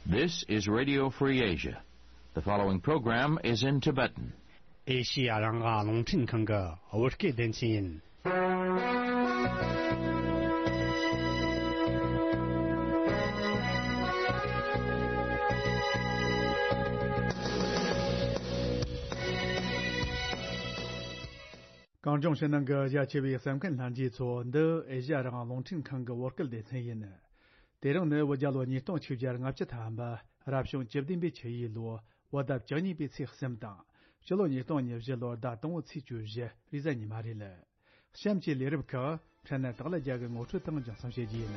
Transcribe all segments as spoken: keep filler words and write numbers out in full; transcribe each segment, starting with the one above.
This is Radio Free Asia. The following program is in Tibetan. ཨེ་ཤི་ཡ་རང་དབང་རླུང་འཕྲིན་ཁང་གི་བོད་སྐད་སྡེ་ཚན་ཡིན། གངས་ལྗོངས་ཕྱི་ནང་གི་རྒྱ་ཆེ་བའི་གསན་མཁན་ལྷན་རྒྱས་ཚོ། འདི་ཨེ་ཤི་ཡ་རང་དབང་རླུང་འཕྲིན་ཁང་གི་བོད་སྐད་སྡེ་ཚན་ཡིན། དེ་རིང་ནི་བོད་རྒྱལ་ལོ་ཉིས་སྟོང་ཆིག་བརྒྱ་ལྔ་བཅུ་ཐམ་པ། རབ་བྱུང་བཅུ་བདུན་པའི་ཆུ་ཡོས་ལོ། བོད་ཟླ་བཅུ་གཉིས་པའི་ཚེས་གསུམ་དང་། སྤྱི་ལོ་ཉིས་སྟོང་ཉེར་བཞི་ལོར་ཟླ་དང་པོའི་ཚེས་བཅུ་བཞི། རེས་གཟའ་ཉི་མ་རེད། གཤམ་གྱི་ལས་རིམ་ཁག་ཕྲན་ན་དག་ལ་རྒྱ་གི་ངོ་སྤྲོད་དང་སྦྱང་གསུང་བྱེད་རྒྱུ་ཡིན།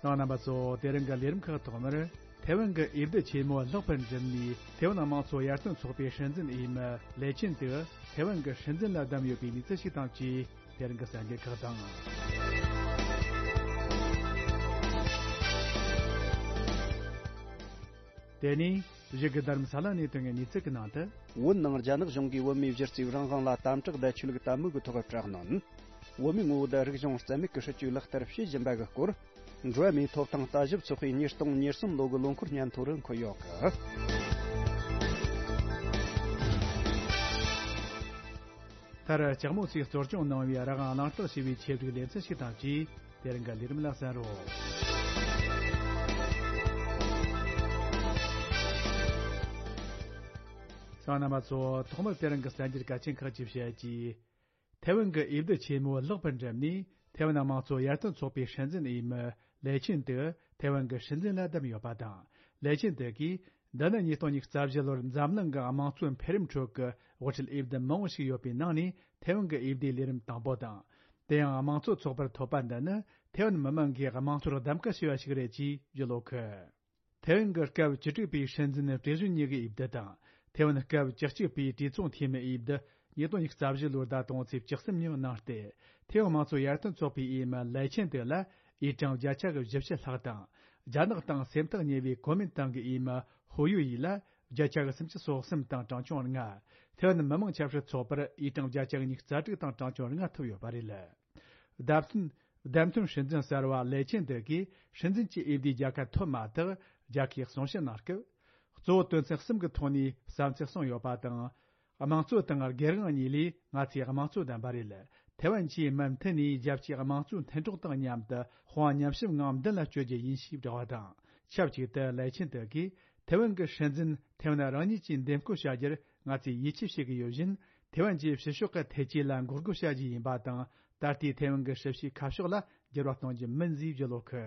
རྣམ་པ་ཚོ། དེ་རིང་གི་ལས་རིམ་ཁག་ཐོག་མར། ཐའེ་ཝན་གྱི་དབྱིབས་གདུབ་ཆེན་མོ་ལྷག་པར་འགྲིབ་ནས། ཐའེ་ཝན་དམངས་གཙོ་ཡར་ཐོན་ཚོགས་པའི་སྲིད་འཛིན་འོས་མི་ལེ་ཆིན་ཏེ་ཐའེ་ཝན་གྱི་སྲིད་འཛིན་ལ་བདམས་ཡོད་པའི་གནས་ཚུལ་ཞིག་དང་བཅས། དེ་རིང་གི་གསར་འགྱུར་ཁག་དང་། དེ་ནས་གཞུག་གི་རྡ་རམ་ས་ལ་ནས་ཐོན་པའི་གནས་ཚུལ་གྱི་ནང་དུ། བོད་ནང་རྒྱ་ནག་གཞུང་གིས་བོད་མིའི་གཞི་རྩའི་རང་དབང་ལ་དམ་དྲག་བརྡ་ཆད་ཀྱི་དད་མོས་ཀྱི་ཐོག་དྲག་གནོན། བོད་མིའི་ངོ་བོ་དང་རིག་གཞུང་རྩ་མེད་ཀྱི་སྲིད་བྱུས་ལག་བསྟར་བྱེད་བཞིན་པ་གི་སྐོར། འགྲོ་བ་མིའི་ཐོབ་ཐང་ལྟ་ཞིབ་ཚོགས་པའི་ཉིས་སྟོང་ཉེར་གསུམ་ལོ་གི་ལོ་འཁོར་སྙན་ཐོ་རུ་འཁོད་ཡོད་གི། མཐར་ལྕགས་མོ་ཚོས་གཙོ་སྐྱོང་གནང་བའི་རང་དབང་གླེང་སྟེགས་ཞེས་པའི་ཆེད་སྒྲིག་ལེ་ཚན་ཞིག་དང་བཅས། དེ་རིང་གི་ལས་རིམ་ལ་གསན་རོགས། གསན་མཁན་རྣམ་པ་ཚོ། ཐོག་མར་དེ་རིང་གི་གསར་འགྱུར་གལ་ཆེན་ཁག་ཅིག་བཤད་རྒྱུ། ཐའེ་ཝན་གྱི་དབྱིབས་གདུབ་ཆེན་མོ་ལྷག་པར་འགྲིབ་ནས། ཐའེ་ཝན་དམངས་གཙོ་ཡར་ཐོན་ཚོགས་པའི་སྲིད་འཛིན་འོས་མི་ལེ་ཆིན་ཏེ་ཐའེ་ཝན་གྱི་སྲིད་འཛིན་ལ་བདམས་ཡོད་པ་དང་། ལེ་ཆིན་ཏེ་གིས། འདི་ནི་ཉིས་སྟོང་ཉི་ཤུ་རྩ་བཞི་ལོར་འཛམ་གླིང་གི་དམངས་གཙོའི་འཕེལ་རིམ་ཁྲོད་ཀྱི་དབུ་ཁྲིད་དབྱིབས་གདུབ་མང་བོ་ཞིག་ཡོད་པའི་ནང་ནས་ཐའེ་ཝན་གྱི་དབྱིབས་གདུབ་ལས་རིམ་དང་པོ་དང་། དེ་ཡང་དམངས་གཙོ་ཚོགས་པར་ཐོབ་པ་འདི་ནི་ཐའེ་ཝན་མི་དམངས་ཀྱིས་དམངས་གཙོར་གདམ་ག་བྱས་པ་ཞིག་རེད་ཅེས་བརྗོད་ཡོད་གི། ཐའེ་ཝན་གྱི་སྐབས་བཅུ་དྲུག་པའི་སྲིད་འཛིན་ཀྲེ་ཞུན་ཉི་གི་དབྱིབས་གདུབ་དང་། ཐའེ་ཝན་སྐབས་བཅུ་གཅིག་པའི་གྲོས་ཚོགས་འཐུས་མི་དབྱིབས་གདུབ་ཉིས་སྟོང་ཉི་ཤུ་རྩ་བཞི་ལོའི་ཟླ་དང་པོའི་ཚེས་བཅུ་གསུམ་ཉིན་གནང་སྟེ། ཐའེ་ཝན་དམངས་གཙོ་ཡར་ཐོན་ཚོགས་པའི་འོས་མི་ལའེ་ཆན་ཏེ་ལ་འོས་གྲངས་བརྒྱ་ཆ་གི་བཞི་བཅུ་ལྷག་དང་། རྒྱ་ནག་དང་སེམས་ཐག་ཉེ་བའི་གོ་མིན་ཏང་གི་འོས་མི་ཧུ་ཡུ་ཡི་ལ་བརྒྱ་ཆ་གི་སུམ་ཅུ་སོ་གསུམ་དང་གྲངས་ཆུང་ལྔ། ཐའེ་ཝན་མི་དམངས་ཆབ་སྲིད་ཚོགས་པར་འོས་གྲངས་བརྒྱ་ཆ་གི་ཉི་ཤུ་རྩ་དྲུག་དང་གྲངས་ཆུང་ལྔ་ཐོབ་ཡོད་པ་རེད། བདམས་ཐོན། བདམས་ཐོན་སྲིད་འཛིན་གསར་བ་ལའེ་ཆན་ཏེ་གིས་སྲིད་འཛིན་གྱི་འོས་བསྡུའི་རྒྱལ་ཁ་ཐོབ་མ་ཐག་རྒྱལ་ཁའི་གསུང་བཤད་གནང་སྐབས། གཙོ་བོ་དོན་ཚན་གསུམ་གྱི་ཐོག་ནས་བསམ་ཚུལ་གསུངས་ཡོད་པ་དང་། དམངས་གཙོ་དང་སྒེར་དབང་གཉིས་ལས་ང་ཚོས་དམངས་གཙོ་བདམས་པ་རེད། ཐའེ་ཝན་གྱིས་མུ་མཐུད་ནས་རྒྱལ་སྤྱིའི་དམངས་གཙོའི་མཐུན་གྲོགས་དང་མཉམ་དུ་དཔུང་པ་མཉམ་གཤིབ་ངང་མདུན་ལ་སྐྱོད་རྒྱུ་ཡིན་ཞེས་བསྒྲགས་པ་དང་། ཆབས་ཅིག་ཏུ་ལའེ་ཆན་ཏེ་གིས་ཐའེ་ཝན་གྱི་སྲིད་འཛིན་ཐའེ་ཝན་རང་ཉིད་ཀྱིས་འདེམས་བསྐོ་བྱ་རྒྱུར་ང་ཚོས་ཡིད་ཆེས་བྱེད་ཀྱི་ཡོད་བཞིན། ཐའེ་ཝན་གྱིས་ཕྱི་ཕྱོགས་ཀྱི་ཐེ་ཇུས་ལ་འགོག་རྒོལ་བྱ་རྒྱུ་ཡིན་པ་དང་། ད་ལྟའི་ཐའེ་ཝན་གྱི་སྲིད་བྱུས་ཁ་ཕྱོགས་ལ་འགྱུར་བ་གཏོང་རྒྱུ་མིན་ཞེས་བརྗོད་ཡོད་གི།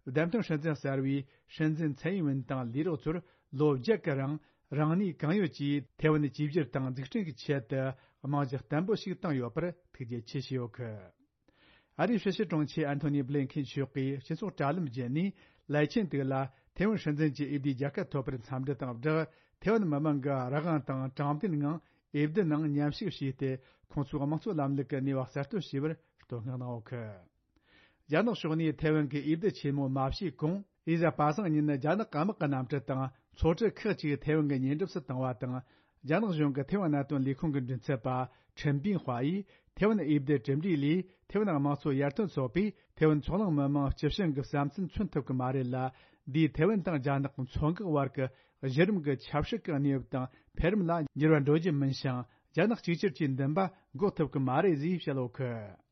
བདམས་ཐོན་སྲིད་འཛིན་གསར་བའི་སྲིད་འཛིན་ཚའེ་ཡིན་ཝིན་དང་ལས་རོགས་ཚོར་ལོ་བརྒྱད་ཀྱི་རིང་རང་ནུས་གང་ཡོད་ཀྱིས་ཐའེ་ཝན་གཅིག་གྱུར་དང་འཛུགས་སྐྲུན་གྱི་ཆེད་དུ་རྨང་གཞི་བརྟན་པོ་ཞིག་བཏིང་ཡོད་པར་ཐུགས་རྗེ་ཆེ་ཞུས་ཡོད་གི། ཨ་རིའི་ཕྱི་སྲིད་དྲུང་ཆེ་ཨན་ཐོ་ནི་བྷི་ལིན་ཁེན་མཆོག་གིས་སྤྱི་ཚོགས་དྲ་ལམ་བརྒྱུད་ནས་ལའེ་ཆན་ཏེ་ལ་ཐའེ་ཝན་སྲིད་འཛིན་གྱི་འོས་བསྡུའི་རྒྱལ་ཁ་ཐོབ་པར་འཚམས་འདྲི་དང་སྦྲགས། ཐའེ་ཝན་མི་དམངས་ཀྱི་རང་དབང་དང་དྲང་བདེན་ངང་འོས་བསྡུ་ནང་མཉམ་ཞུགས་བྱས་ཏེ། ཁོང་ཚོའི་དམངས་གཙོ་ལམ་ལུགས་ཀྱི་ནུས་པ་གསར་གཏོད་བྱས་པར་བསྟོད་བསྔགས་གནང་ཡོད་གི། རྒྱ་ནག་ཕྱོགས་ནས་ཐའེ་ཝན་གྱི་འོས་བསྡུ་ཆེན་མོ་མ་བྱས་གོང་། རེས་གཟའ་པ་སངས་ཉིན་རྒྱ་ནག་དམག་གི་གནམ་གྲུ་དང་ཚོགས་གྲུ་ཁག་ཅིག་ཐའེ་ཝན་གྱི་ཉེ་འགྲམ་དུ་བཏང་བ་དང་། རྒྱ་ནག་གཞུང་གི་ཐའེ་ཝན་གནད་དོན་ལས་ཁུངས་ཀྱི་མགྲིན་ཚབ་པ་ཁྲིན་པིན་ཧྭ་ཡིས་ཐའེ་ཝན་འོས་བསྡུ་གྲུབ་འབྲས་ལས་ཐའེ་ཝན་དམངས་གཙོ་ཡར་ཐོན་ཚོགས་པས་ཐའེ་ཝན་མཚོ་གླང་མི་དམངས་སྤྱི་བྱིངས་ཀྱི་བསམ་ཚུལ་མཚོན་ཐུབ་ཀྱི་མ་རེད་ལ། འདིས་ཐའེ་ཝན་དང་རྒྱ་ནག་མཚོ་འགག་བར་གྱི་གཞི་རིམ་གྱི་ཆབ་སྲིད་ཀྱི་གནས་བབ་དང་འཕེལ་རིམ་ལ་འགྱུར་བ་འགྲོ་རྒྱུ་མིན་ཞིང་། རྒྱ་ནག་གཅིག་གྱུར་གྱི་འདུན་པ་འགོག་ཐུབ་ཀྱི་མ་རེད་ཅེས་བཤད་ཡོད་གི།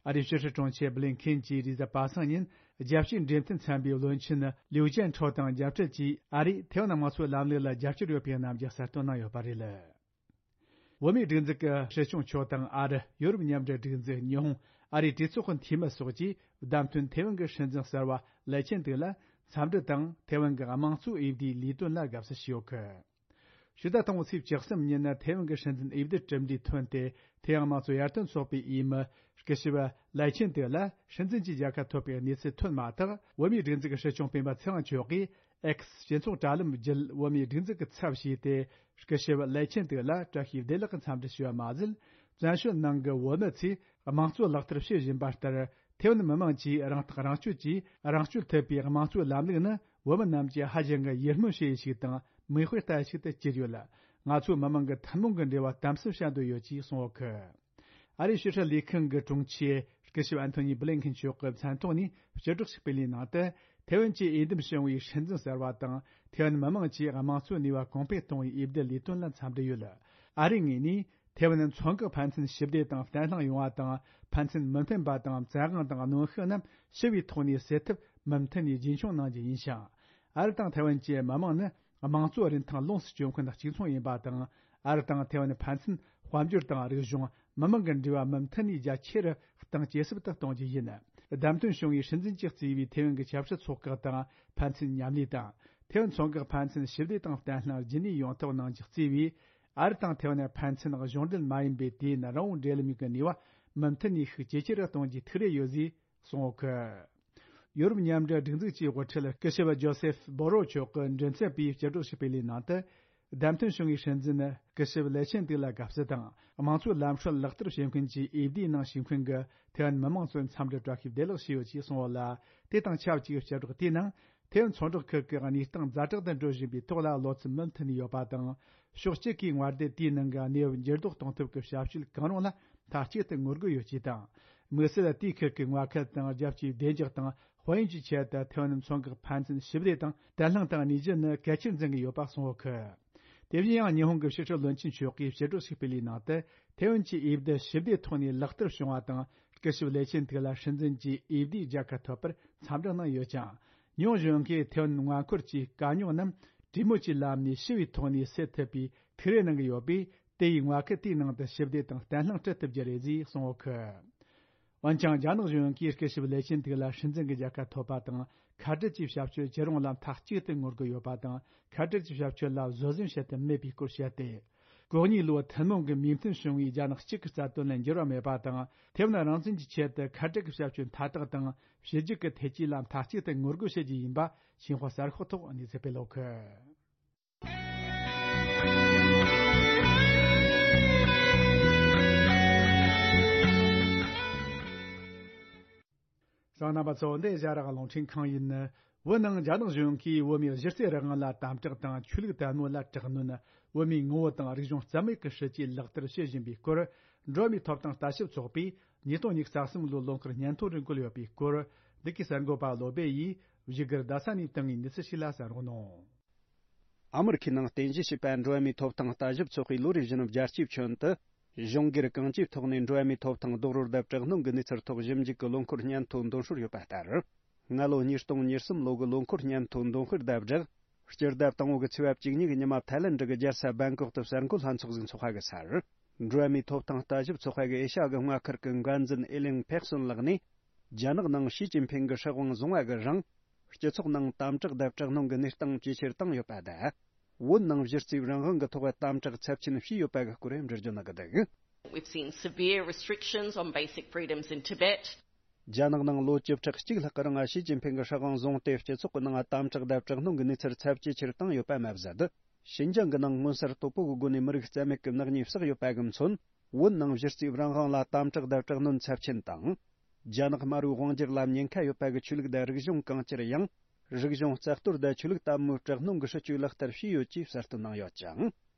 ཨ་རིའི་ཕྱི་སྲིད་དྲུང་ཆེ་བྷི་ལིན་ཁེན་གྱིས་རེས་གཟའ་པ་སངས་ཉིན་རྒྱལ་སྤྱིའི་འབྲེལ་མཐུད་ཚན་པའི་བློན་ཆེན་ལིའུ་ཅན་ཁྲོ་དང་མཇལ་འཕྲད་ཀྱིས། ཨ་རིས་ཐའེ་ཝན་དམངས་གཙོའི་ལམ་ལུགས་ལ་རྒྱབ་སྐྱོར་ཡོད་པའི་རྣམ་འགྱུར་གསལ་སྟོན་གནང་ཡོད་པ་རེད། བོད་མིའི་སྒྲིག་འཛུགས་ཀྱི་སྲིད་སྐྱོང་མཆོག་དང་། ཨ་རི། ཡོ་རོབ་མཉམ་འབྲེལ་སྒྲིག་འཛུགས། ཉི་ཧོང་། ཨ་རིའི་གྲོས་ཚོགས་ཀྱི་འཐུས་མི་སོགས་ཀྱིས་བདམས་ཐོན་ཐའེ་ཝན་གྱི་སྲིད་འཛིན་གསར་བ་ལའེ་ཆན་ཏེ་ལ་འཚམས་འདྲི་དང་། ཐའེ་ཝན་གྱི་དམངས་གཙོའི་འོས་བསྡུའི་ལས་དོན་ལ་དགའ་བསུ་ཞུས་ཡོད་གི། ཕྱི་ཟླ་དང་པོའི་ཚེས་བཅུ་གསུམ་ཉིན་ནི་ཐའེ་ཝན་གྱི་སྲིད་འཛིན་འོས་བསྡུ་གྲུབ་འབྲས་ཐོན་ཏེ། ཐའེ་ཝན་དམངས་གཙོ་ཡར་ཐོན་ཚོགས་པའི་འོས་མི་སྐུ་ཞབས་ལའེ་ཆན་ཏེ་ལ་སྲིད་འཛིན་གྱི་རྒྱལ་ཁ་ཐོབ་པའི་གནས་ཚུལ་ཐོན་མ་ཐག། བོད་མིའི་སྒྲིག་འཛུགས་ཀྱི་སྲིད་སྐྱོང་སྤེན་པ་ཚེ་དབང་མཆོག་གིས་ཨེགས་སྤྱི་ཚོགས་དྲ་ལམ་བརྒྱུད་བོད་མིའི་སྒྲིག་འཛུགས་ཀྱི་ཚབ་བྱས་ཏེ། སྐུ་ཞབས་ལའེ་ཆན་ཏེ་ལ་བཀྲ་ཤིས་བདེ་ལེགས་ཀྱི་འཚམས་འདྲི་ཞུས་པ་མ་ཟད། བཙན་བྱོལ་ནང་གི་བོད་མི་ཚོས་དམངས་གཙོ་ལག་བསྟར་བྱེད་བཞིན་པ་ལྟར། ཐའེ་ཝན་མི་དམངས་ཀྱིས་རང་ཐག་རང་གཅོད་ཀྱིས་རང་སྐྱོང་ཐུབ་པའི་དམངས་གཙོའི་ལམ་ལུགས་ནི། བོད་མི་རྣམས་ཀྱིས་ཧ་ཅང་གི་ཡིད་སྨོན་བྱེད་ཡུལ་ཞིག་དང་། མིག་དཔེ་ལྟ་ཡུལ་ཞིག་ཏུ་གྱུར་ཡོད། ང་ཚོ་མི་དམངས་ཀྱི་ཐུན་མོང་གི་འབྲེལ་བ་དམ་ཟབ་བྱ་འདོད་ཡོད་ཅེས་གསུངས་ཡོད་གི། ཨ་རིའི་ཕྱི་སྲིད་ལས་ཁང་གི་དྲུང་ཆེ་ སྐུ་ཞབས་ཨན་ཐོ་ནི་བྷི་ལིན་ཁིན་མཆོག་གི་མཚན་ཐོག་ནས་སྤྱི་སྒྲོག་ཞིག་སྤེལ་བའི་ནང་དུ། ཐེ་ཝན་གྱི་འོས་འདེམས་བྱུང་བའི་སྲིད་འཛིན་གསར་བ་དང་། ཐེ་ཝན་མི་མང་གྱིས་དམངས་གཙོའི་ནུས་པ་གོང་འཕེལ་གཏོང་བའི་འོས་བསྡུ་ལས་དོན་ལ་འཚམས་འདྲི་ཡོད། ཨ་རིའི་ངོས་ནས། ཐེ་ཝན་མཚོ་འགག་ཕན་ཚུན་ཞི་བདེ་དང་བརྟན་ལྷིང་ཡོང་བ་དང་། ཕན་ཚུན་མི་མཐུན་པ་དང་བཙན་དབང་དང་གནོན་ཤུགས་རྣམས་ཞི་བའི་ཐོག་ནས་སེལ་ཐབས་མུ་མཐུད་ནས་རྒྱུན་འཁྱོངས་གནང་རྒྱུ་ཡིན་ཞིང་། ཨ་རི་དང་ཐེ་ཝན་གྱི་མི་དམངས་ནི་དམངས་གཙོ་རིན་ཐང་ལོངས་སུ་སྤྱོད་མཁན་གཅིག་མཚུངས་ཡིན་པ་དང་། ཨ་རི་དང་ཐེ་ཝན་ཕན་ཚུན་དཔལ་འབྱོར་དང་རིག་གཞུང་། མི་དམངས་ཀྱི་འབྲེལ་བ་མུ་མཐུད་ནས་རྒྱ་ཆེ་རུ་གཏང་ཇེ་ཟབ་ཏུ་གཏོང་རྒྱུ་ཡིན། བདམས་ཐོན་བྱུང་བའི་སྲིད་འཛིན་གྱིས་གཙོས་པའི་ཐེ་ཝན་གྱི་ཆབ་སྲིད་ཚོགས་ཁག་དང་ཕན་ཚུན་མཉམ་ལས་དང་། ཐེ་ཝན་མཚོ་འགག་ཕན་ཚུན་ཞི་བདེ་དང་བརྟན་ལྷིང་རྒྱུན་གནས་ཡོང་ཐབས་གནང་རྒྱུ་གཙོས་པའི། ཨ་རི་དང་ཐེ་ཝན་ཕན་ཚུན་གཞུང་འབྲེལ་མ་ཡིན་པའི་དུས་ཡུན་རིང་བོ་འབྲེལ་ལམ་གྱི་ནུས་པ་མུ་མཐུད་ནས་ཤུགས་ཇེ་ཆེ་རུ་གཏོང་རྒྱུའི་ཐུགས་རེ་ཡོད་ཅེས་གསུངས་ཡོད་སྐད། ཡོ་རོབ་མཉམ་འབྲེལ་སྒྲིག་འཛུགས་ཀྱི་དབུ་ཁྲིད་སྐུ་ཞབས་ཇོ་སེབ་བོ་རོ་མཆོག་གི་མགྲིན་ཚབ་པས་སྤྱི་སྒྲོག་ཞིག་སྤེལ་བའི་ནང་དུ། བདམས་ཐོན་བྱུང་བའི་སྲིད་འཛིན་སྐུ་ཞབས་ལེ་ཆེན་ཏི་ལ་དགའ་བསུ་དང་། དམངས་གཙོའི་ལམ་སྲོལ་ལག་བསྟར་བྱེད་མཁན་གྱི་འོས་བསྡུའི་ནང་ཞུགས་མཁན་གྱི་ཐེ་ཝན་མི་དམངས་ཚོར་འཚམས་འདྲི་བཀྲ་ཤིས་བདེ་ལེགས་ཞུས་ཡོད་ཅེས་གསུངས་ཡོད་ལ། དེ་དང་ཆབས་ཅིག་སྤྱི་སྒྲོག་དེའི་ནང་། ཐེ་ཝན་མཚོ་འབྲེལ་ཁུལ་གྱི་གནས་སྟངས་ཛ་དྲག་ཏུ་འགྲོ་བཞིན་པའི་ཐོག་ལ་བློ་འཚབ་མུ་མཐུད་ནས་ཡོད་པ་དང་། ཕྱོགས་གཅིག་གིས་མངའ་སྡེ་དེའི་ནང་གི་གནས་བབ་འགྱུར་ལྡོག་གཏོང་ཐབས་ཀྱི་བྱ་སྤྱོད་གང་རུང་ལ་མཐའ་གཅིག་ཏུ་ངོ་རྒོལ་ཡོད་ཅེས་དང་། དམིགས་བསལ་དེའི་ཁུལ་གྱི་མངའ་ཁུལ་དང་རྒྱལ་སྤྱིའི་བདེ་འཇགས་དང་དཔལ་ཡོན་གྱི་ཆེད་དུ་ཐེ་ཝན་མཚོ་འགག་ཕན་ཚུན་ཞི་བདེ་དང་བརྟན་ལྷིང་དུ་གནས་རྒྱུ་ནི་གལ་ཆེར་འཛིན་གྱི་ཡོད་པ་གསུངས་ཡོད་སྐད། དེ་བཞིན་ཡང་ཉི་ཧོང་གི་ཕྱི་སྲིད་བློན་ཆེན་མཆོག་གིས་སྤྱི་སྒྲོག་ཞིག་སྤེལ་བའི་ནང་དུ། ཐེ་ཝན་གྱི་འོས་བསྡུ་ཞི་བདེའི་ཐོག་ནས་ལག་བསྟར་བྱུང་བ་དང་། སྐུ་ཞབས་ལེ་ཆེན་ཏི་ལ་སྲིད་འཛིན་གྱི་འོས་བསྡུའི་རྒྱལ་ཁ་ཐོབ་པར་འཚམས་འདྲི་གནང་ཡོད་ཅིང་། ཉུང་གཞོན་གྱིས་ཐེ་ཝན་མངའ་འཁོར་གྱི་དཀའ་རྙོག་རྣམས་གྲོས་མོལ་གྱི་ལམ་ནས་ཞི་བའི་ཐོག་ནས་སེལ་ཐུབ་པའི་ཐུགས་རེ་གནང་གི་ཡོད་པས། དེ་ཡིས་མངའ་ཁུལ་དེའི་ནང་དུ་ཞི་བདེ་དང་བརྟན་ལྷིང་སྲུང་ཐུབ་རྒྱུ་རེད་ཅེས་གསུངས་ཡོད་སྐད། འོན་ཀྱང་། རྒྱ་ནག་གཞུང་གིས་སྐུ་ཞབས་ལེ་ཆིན་ཏིག་ལ་སྲིད་འཛིན་གྱི་རྒྱལ་ཁ་ཐོབ་པ་དང་། ཁ་བྲལ་གྱི་བྱ་སྤྱོད་ཇི་རུང་ལ་མཐའ་གཅིག་ཏུ་ངོ་རྒོལ་ཡོད་པ་དང་། ཁ་བྲལ་གྱི་བྱ་སྤྱོད་ལ་བཟོད་བསྲན་བྱེད་དུ་མེད་པའི་སྐོར་བཤད་དེ། གོ་གཉིས་ལོའི་ཐུན་མོང་གི་མོས་མཐུན་བྱུང་བའི་རྒྱ་ནག་གཅིག་གི་རྩ་དོན་ལ་འགྱུར་བ་མེད་པ་དང་། ཐེ་ཝན་རང་བཙན་གྱི་ཆེད་དུ་ཁ་བྲལ་གྱི་བྱ་སྤྱོད་མཐའ་དག་དང་། ཕྱི་རྒྱལ་གྱི་ཐེ་ཇུས་ལ་མཐའ་གཅིག་ཏུ་ངོ་རྒོལ་བྱེད་རྒྱུ་ཡིན་པ། ཞིན་ཧྭ་གསར་ཤོག་ཐོག་གནས་ཚུལ་སྤེལ་ཡོད་སྐད། གསན་མཁན་རྣམ་པ་ཚོ། འདི་ཨེ་ཤ་ཡ་རང་དབང་རླུང་འཕྲིན་ཁང་ཡིན། བོད་ནང་རྒྱ་ནག་གཞུང་གིས་བོད་མིའི་གཞི་རྩའི་རང་དབང་ལ་དམ་དྲག་དང་། ཆོས་ལུགས་དད་མོས་ལ་དྲག་གནོན། བོད་མིའི་ངོ་བོ་དང་རིག་གཞུང་རྩ་མེད་ཀྱི་སྲིད་ཇུས་ལག་བསྟར་བྱེད་བཞིན་པའི་སྐོར། འགྲོ་བ་མིའི་ཐོབ་ཐང་ལྟ་ཞིབ་ཚོགས་པས་ཉིས་སྟོང་ཉི་ཤུ་རྩ་གསུམ་ལོའི་ལོ་འཁོར་སྙན་ཐོ་རུ་བཀོད་ཡོད་པའི་སྐོར། འདི་གའི་གསར་འགོད་པ་བློ་བྷེ་ཡིས་བཞུགས་སྒར་རྡ་ས་ནས་བཏང་བའི་གནས་ཚུལ་ཞིག་ལ་གསན་རོགས་གནང་། ཨ་མི་རི་ཁའི་ནང་རྟེན་གཞི་བྱས་པ་འགྲོ་བ་མིའི་ཐོབ་ཐང་ལྟ་ཞིབ་ཚོགས་པས་ལོ་རེ་བཞིན་རྒྱལ་སྤྱིའི་ཁྱོན་དུ། གཞུང་སྒེར་གང་ཅིའི་ཐོག་ནས་འགྲོ་བ་མིའི་ཐོབ་ཐང་རྡོག་རོལ་དང་དྲག་གནོན་གྱི་གནས་ཚུལ་ཐོག་ཞིབ་འཇུག་གི་ལོ་འཁོར་སྙན་ཐོ་འདོན་སྲོལ་ཡོད་པ་ལྟར། སྔ་ལོ་ཉིས་སྟོང་ཉེར་གསུམ་ལོ་གི་ལོ་འཁོར་སྙན་ཐོ་འདོན་སྤེལ་དང་སྦྲགས། སྤྱི་ཟླ་དང་པོ་གི་ཚེས་པ་བཅུ་གཉིས་ཀྱི་ཉི་མ། ཐའི་ལེན་ཌི་གི་རྒྱལ་ས་བེང་ཀོག་ཏུ་གསར་འགོད་ལྷན་ཚོགས་ཤིག་འཚོགས་པ་གི་སར། འགྲོ་བ་མིའི་ཐོབ་ཐང་ལྟ་ཞིབ་ཚོགས་པ་གི་ཨེ་ཤ་ཡ་གི་མངའ་ཁུལ་གྱི་འགན་འཛིན་ཨེ་ལིང་ཕེག་སོན་ལགས་ནས། རྒྱ་ནག་ནང་ཞི་ཅིན་ཕིང་གི་སྲིད་དབང་བཟུང་བ་གི་རིང་། སྤྱི་ཚོགས་ནང་དམ་དྲག་དང་དྲག་གནོན་གྱི་གནས་སྟངས་ཇེ་ཆེར་བཏང་ཡོད་པ་དང་། བོད་ནང་གཞི་རྩའི་རང་དབང་གི་ཐོག་དམ་དྲག་ཚབས་ཆེན་བྱས་ཡོད་པ་གི་སྐོར་འགྲེལ་བརྗོད་གནང་གི་འདུག། We've seen severe restrictions on basic freedoms in Tibet. རྒྱ་ནག་ནང་ལོ་བཅུ་ཕྲག་གཅིག་ལྷག་གི་རིང་ཞི་ཅིན་ཕིང་གི་སྲིད་དབང་བཟུང་སྟེ། སྤྱི་ཚོགས་ཀྱི་ནང་དམ་དྲག་དང་དྲག་གནོན་གྱི་གནས་ཚུལ་ཚབས་ཇེ་ཆེར་བཏང་ཡོད་པ་མ་ཟད། ཞིན་ཅང་གི་ནང་མངོན་གསལ་དོད་པོ་གི་སྒོ་ནས་མི་རིགས་རྩ་མེད་ཀྱི་ནག་ཉེས་བསགས་ཡོད་པ་གི་མཚོན། བོད་ནང་གཞི་རྩའི་རང་དབང་ལ་དམ་དྲག་དང་དྲག་གནོན་ཚབས་ཆེན་དང་། རྒྱ་ནག་དམར་པོའི་དབང་སྒྱུར་ལ་ཉེན་ཁ་ཡོད་པ་གི་ཆོས་ལུགས་དང་རིག་གཞུང་གང་ཅིར་ཡང་། རིག་གཞུང་རྩ་གཏོར་དང་ཆོས་ལུགས་དད་མོས་དྲག་གནོན་གྱི་སྲིད་ཇུས་ལག་བསྟར་བྱས་ཡོད་ཅེས་གསལ་སྟོན་གནང་ཡོད་ཅིང་།